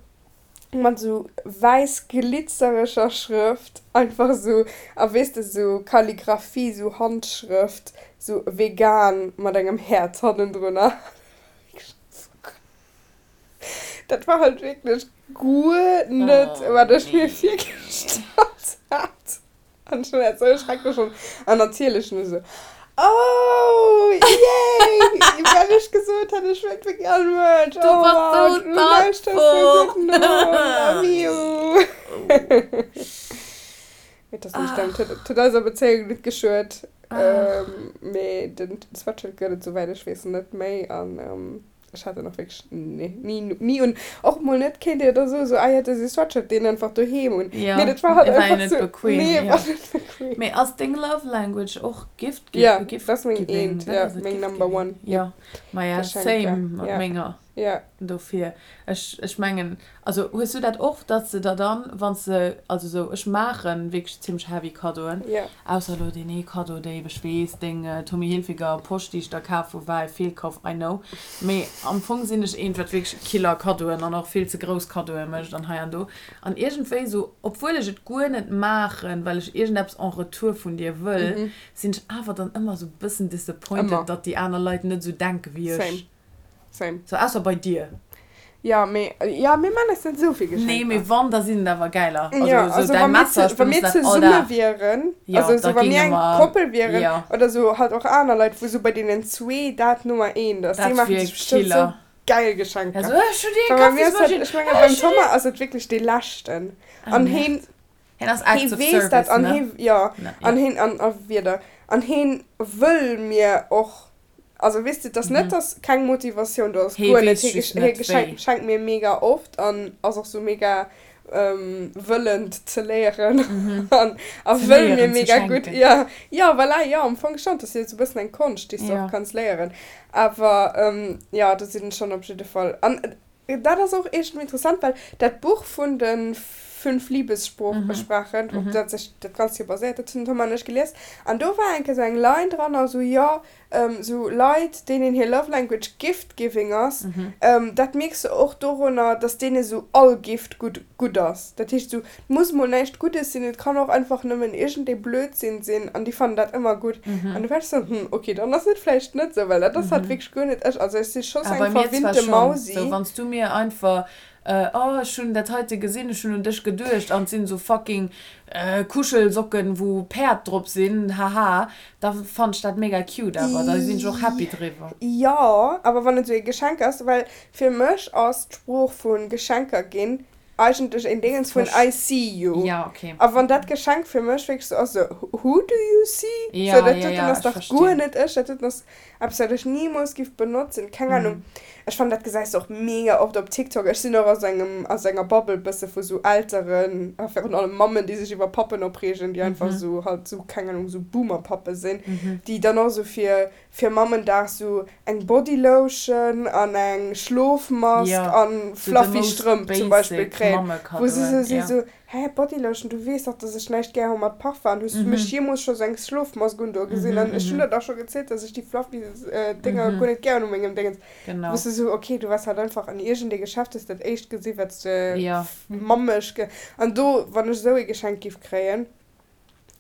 A: mat sou wäiss glitzereger Schrëft, einfach sou, a weess de, sou Kalligraphie, sou Handschrëft, sou vegan mat engem Häerz hannendrunner. Dat war halt wierklech guer net, wat ech mir virgestallt hat. An ech hunn dat esou schrecklech fonnt. An natierlech hunn ech esou, Oh, yay! Well ech gesot hat, ech wëllt wierklech all Merch.
B: Du
A: Oh
B: bass
A: wow,
B: sou
A: du lauschters sou gutt no. Love you. Mee et ass net stëmmt. Huet, huet eiser Bezéiung net geschuet. Mee den Sweatshirt gëtt et, souwäit ech weess, net méi. An Ech hat en och wierklech ni, ni un. Och mol net, kéint Dir da soen, sou, ah jo, dat ass ee Sweatshirt, deen einfach doheem un.
B: Ja,
A: Mee dat war halt
B: e war jo
A: einfach
B: net
A: sou,
B: bequem,
A: nee, e
B: ja.
A: war net bequem.
B: Mee ass deng Love Language och Gift gi-,
A: Ja,
B: Gift
A: dat ass meng
B: giving?
A: eent,
B: Dat
A: ja,
B: ass et,
A: meng
B: Gift
A: Number
B: giving.
A: one,
B: Ja,
A: yep.
B: maja,
A: Geschenker,
B: same mat
A: ja,
B: menger.
A: ja.
B: Dofir, ech, ech mengen, also hues du dat och, dass de der dann, wann s de, also sou, ech maachen wierklech zimmlech heavy Kaddoen,
A: Ja.
B: ausser elo deen ee Kaddo, déi, ech weess, deng Tommy Hilfiger Posch, déi ech der kaf hu war e Feelkauf, I know, mee am Fong sinn ech eent, wat wierklech Killer Kaddoen an och vill ze grouss Kaddoe mécht an hei an do an iergendwéi sou, obwuel ech et guer net maachen, well ech iergendeppes en retour vun dir wëll, sinn ech awer dann ëmmer sou bëssen disappointed,
A: Ëmmer.
B: datt déi aner Leit net sou denke wéi ech.
A: Same. Same.
B: So ausser bei dir.
A: Ja, mee, ja, mir man eis net esou vill
B: Nee,
A: Geschenker.
B: mee wann, da sinn et awer gäiler. Also
A: Ja,
B: sou
A: also
B: däi
A: wa mir
B: Messer,
A: ze,
B: ech
A: wa mir
B: benotze dat all
A: zesumme
B: Dag.
A: wieren,
B: Ja,
A: also
B: da
A: sou wa mir
B: géinge
A: eng
B: mer,
A: Koppel wieren,
B: ja.
A: oder sou halt och aner Leit, wou sou bei deenen zwee dat Nummer eent ass, déi
B: Dat
A: maache
B: wier
A: sech bestimmt sou
B: Killer.
A: geil
B: Ja,
A: Geschenker.
B: sou, ech hunn dir eng
A: Well bei mir ass dat,
B: Kaffismaschinn,
A: ech menge
B: ech
A: beim
B: hunn dir.
A: Thomas ass et wierklech dee leschten.
B: Ah,
A: An
B: Merde.
A: heen,
B: Hien ass
A: hee
B: Acts of
A: weess dat
B: Service,
A: an
B: ne?
A: hee, jo,
B: Ne,
A: an
B: ja.
A: heen, an, a wieder, an heen wëll mir och Also weess de, et ass net, dass keng Motivatioun do ass,
B: Hee
A: guer net.
B: weess just
A: Hee
B: net wéi.
A: schenkt mir mega oft an ass och sou mega wëllend ze léieren an a
B: Ze
A: wëll mir
B: léieren ze
A: mega gutt.
B: schenken.
A: Jo, jo, voilà, jo, am Fong schonn. Et ass jo sou e bëssen eng Konscht, déi s de och
B: Jo.
A: kanns léieren. Awer jo, do sinn ech schonn op jidde Fall. An dat ass och iergendwéi interessant, well dat Buch vun de fünf Liebessprachen, op dat sech dat Ganzt jo baséiert, dat hunn den Tom an ech gelies. An do war eng Kéier sou eng Line dran, also jo, Sou Leit, deenen hir Love Language Gift Giving ass, dat mierks de och dorunner, dass deene sou all Gift gutt gutt ass. Dat heescht sou, et muss mol näischt Guddes sinn, et kann och einfach nëmmen iergendee Blödsinn sinn an déi fannen dat ëmmer gutt. An du war ech sou, hm, ok, dann ass et vläicht net sou, well dat ass halt wierklech guer net ech. Also ech si scho sou
B: Ah, bei
A: eng
B: mir zwar
A: verwinnte
B: schonn.
A: Mausi.
B: Sou, wann s du mir einfach, oh, ech hunn dat heite gesinn, ech hunn un dech geduecht an et sinn sou fucking Kuschelsocken, wou Päerd drop sinn, haha, Da fannen ech dat mega cute awer, da sinn ech och happy driwwer.
A: Jo, awer wann et esou ee Geschenk ass, well fir mech ass d'Sprooch vu Geschenker ginn eigentlech een Déngens vun I see you.
B: Ja, okay.
A: A wann dat Geschenk fir mech wierklech esou ass, esou who do you see?
B: Ja,
A: Sou dat
B: ja,
A: doten
B: ja,
A: ass
B: ech
A: dach guer
B: verstinn.
A: net ech, dat doten ass eppes wat ech nimools giff benotzen, keng Ahnung. Ech fannen dat gesäis de och mega oft op TikTok. Ech sinn och aus engem, aus enger Bubble bësse vu sou Elteren, a virun allem Mammen, déi sech iwwer Pappen opreegen, déi einfach sou halt sou, keng Ahnung, sou Boomer-Pappe sinn, déi dann och sou fir, fir Mammendag sou eng Bodylotion an eng Schlofmask an fluffy Strëmp zum Beispill kréien, wou se sou si sou, Hä, Bodylotion, du weess dach, dass ech näischt gär hu mat Parfum. An hues du mech jeemools scho sou eng Schlofmask un do gesinn? An ech hunn der dach scho gezielt, dass ech déi fluffy Dénger guer net gär hunn u mengem Déngens. Wou s du sou, ok, du waars halt einfach an iergendee Geschäft, hues dat éischt gesi wat s de mammeg ge. An do, wann ech esou ee Geschenk giff kréien,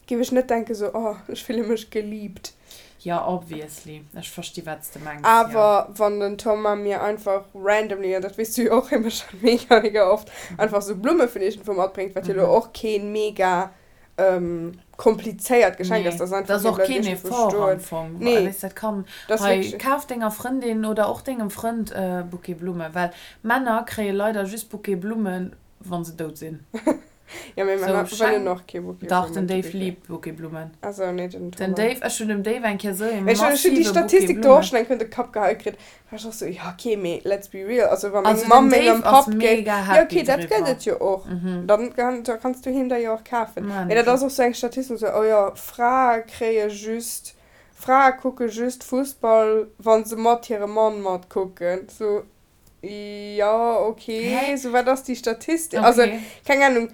A: Giff ech net denken sou, oh ech fille mech geliebt.
B: Jo, obviously. Ech versti wat s de mengs, jo.
A: Awer wann den Thomas mir einfach randomly, an dat weess du jo och, hie mécht dat mega mega oft, einfach sou Blumme vun iergendwou matbréngt, wat jo elo och keen mega komplizéiert Geschenk ass,
B: Nee,
A: dat ass
B: dat
A: einfach
B: ass
A: hie
B: och
A: bleift
B: keen
A: iergendwou
B: Effort am
A: stoen.
B: Fong.
A: Nee,
B: Weess, dat kann,
A: dat ass
B: hei,
A: wierklech.
B: kaf denger Frëndin oder och dengem Frënd e Bouquet Blumme, well Männer kréie leider just Bouquet Blummen, wa se dout sinn.
A: Ja, mee
B: So,
A: Männer wëllen
B: schenk.
A: och kee Bouquet
B: Dach, den
A: Blummen, to
B: Dave
A: be fair.
B: liebt Bouquet Blummen.
A: Also, nee, den
B: Den
A: Thomas.
B: Dave, ech hunn dem Dave eng Kéier sou ee
A: Ech hunn ech hunn déi
B: massive Bouquet
A: Statistik do och
B: Blummen.
A: schonn eng Kéier un de Kapp geheit kritt. War ech och sou, ja okay, mee let's be real, also wa meng
B: Also den
A: Mamm mengem
B: Dave ass
A: Papp géif,
B: mega
A: ja
B: happy
A: okay, dat gëtt
B: driwwer.
A: et jo och, dann kann, da kanns du him der jo och kafen.
B: Maan
A: Mee dat
B: ech
A: ass
B: och.
A: och sou eng Statistik, sou, oh jo, Frae kréie just, Frae kucke just Fussball, wa se mat hirem Mann matkucken. Sou, Jo, ok.
B: Hä?
A: Sou, wat ass déi Statistik? Also,
B: Okay.
A: keng Ahnung.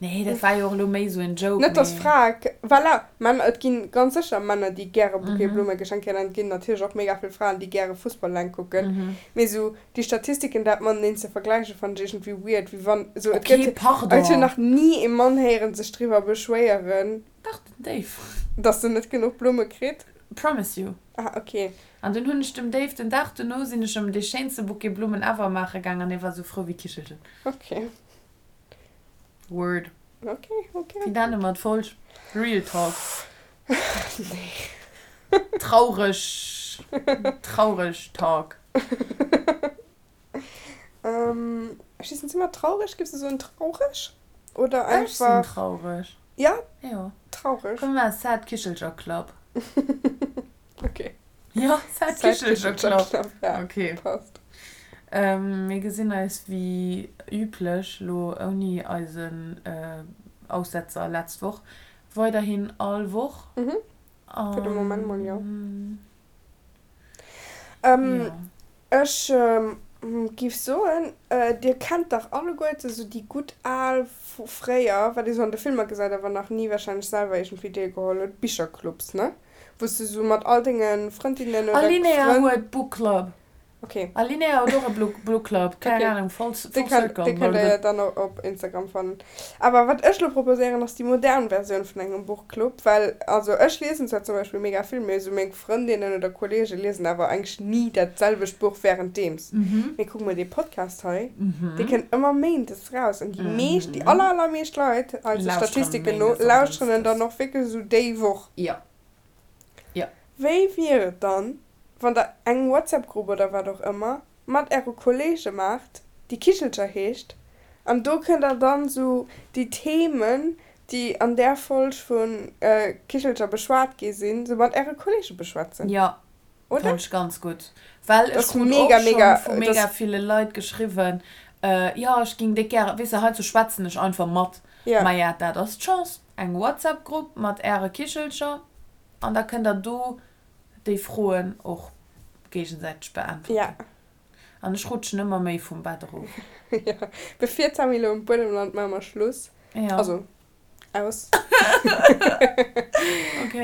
B: Nee, dat war jo och elo méi sou en Joke,
A: Net, dass
B: mee.
A: Frae, voilà, Männer, et gi ganz sécher Männer, déi gäre Bouquet Blumme geschenkt kréien, an et ginn natierlech och mega vill Fraen, déi gäre Fussball eleng kucken. Mee sou déi Statistiken, dat mateneen ze vergläichen, fannen ech iergendwéi weird, wéi wann, sou, et
B: Okay,
A: gëtt, ech hunn
B: pardon.
A: nach ni ee Mann héieren sech driwwer beschwéieren,
B: Dach, den Dave.
A: dass en net genuch Blumme kritt.
B: Promise you.
A: Ah, ok.
B: An dunn hunn ech dem Dave, den Dag dono sinn ech em dee schéinste Bouquet Blummen ever maache gaang an hie war sou frou wéi Kichelchen.
A: Ok.
B: Word.
A: Ok, ok.
B: Wéi nenne mer d'Folg? Real Talk.
A: Nee.
B: Traureg, traureg Talk.
A: Ech weess net, si mer traureg? Giffs de soen traureg? Oder
B: Ech sinn
A: einfach.
B: traureg.
A: Ja?
B: Jo.
A: Traureg.
B: Komm mir maache Sad Kichelcher Club.
A: Ok.
B: Jo, Sad
A: Sad
B: Kichelcher
A: Kichelcher
B: Club.
A: Club, ja.
B: Ok.
A: Passt.
B: Mir gesinn eis wéi üblech, lo ouni eisen Aussetzer letzt Woch, weiderhin all Woch.
A: Mhm. Fir de Moment mol jo.
B: Jo.
A: Ech giff soen, dir kennt dach alleguerte sou déi gutt al vu fréier, wat ee sou an de Filmer gesäit, awer nach ni wahrscheinlech selwer iergendwéi deelgeholl huet, Bicherclubs, ne? Wou s de sou mat all denge Frëndinnen oder
B: Alinéa
A: Frënn.
B: huet Book Club.
A: Okay.
B: Alinéa huet och e Book Club, keng
A: Okay.
B: Ahnung, full
A: Dee kennt,
B: circle.
A: dee kënnt der jo dann och op Instagram fannen. Awer wat ech lo proposéieren, ass déi modern Versioun vun engem Buchclub, well, also ech liesen zwar zum Beispill mega vill, mee esou meng Frëndinnen oder Kollege liesen awer eigentlech ni dat selwecht Buch wärenddeems. Mee kuck mol dee Podcast hei, dee kënnt ëmmer méindes raus an déi meescht, déi aller allermeescht Leit, eise
B: Lauschteren
A: Statistiken no,
B: méindes an
A: lauschteren en
B: dënschdes.
A: dann och wierklech esou déi Woch.
B: Jo. Jo.
A: Wéi wier et dann, wann der eng WhatsApp-Grupp oder wat och ëmmer mat äre Kollege maacht, déi Kichelcher heescht, an do kënnt der dann sou déi Themen, déi an där Folg vu Kichelcher beschwat gi sinn, sou mat äre Kollege beschwätzen,
B: Jo,
A: oder?
B: fannen ech ganz gutt. Well ech
A: Dass
B: krut och
A: mega,
B: schonn
A: mega,
B: vu mega
A: dass.
B: ville Leit geschriwwen, jo ech ging déck gären, weess de, heizou schwätzen ech einfach mat.
A: Ja.
B: Maja, dat ass d'Chance, eng WhatsApp-Grupp mat äre Kichelcher an da kënnt der do déi Froen och géigesäiteg beäntwerten.
A: Ja.
B: An ech rutschen ëmmer méi vum Bett erof.
A: Jo, bevir d'Sammy elo um Buedem lant, maache mer Schluss.
B: Ja.
A: Also, aus.
B: Ok.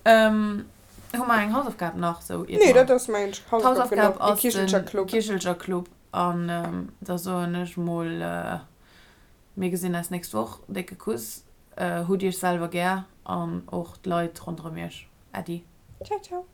B: Hu mer eng Hausaufgab nach sou iert
A: Nee,
B: mer.
A: dat ass mengen ech Hausaufgab
B: D'Hausaufgab
A: genuch. De
B: ass de
A: Kichelcher Club.
B: Kichelcher Club. An da soen ech mol, mir gesinn eis nächst Woch. Décke Kuss. Hutt iech selwer gär an och d'Leit ronderëm iech. Äddi.
A: Ciao, ciao.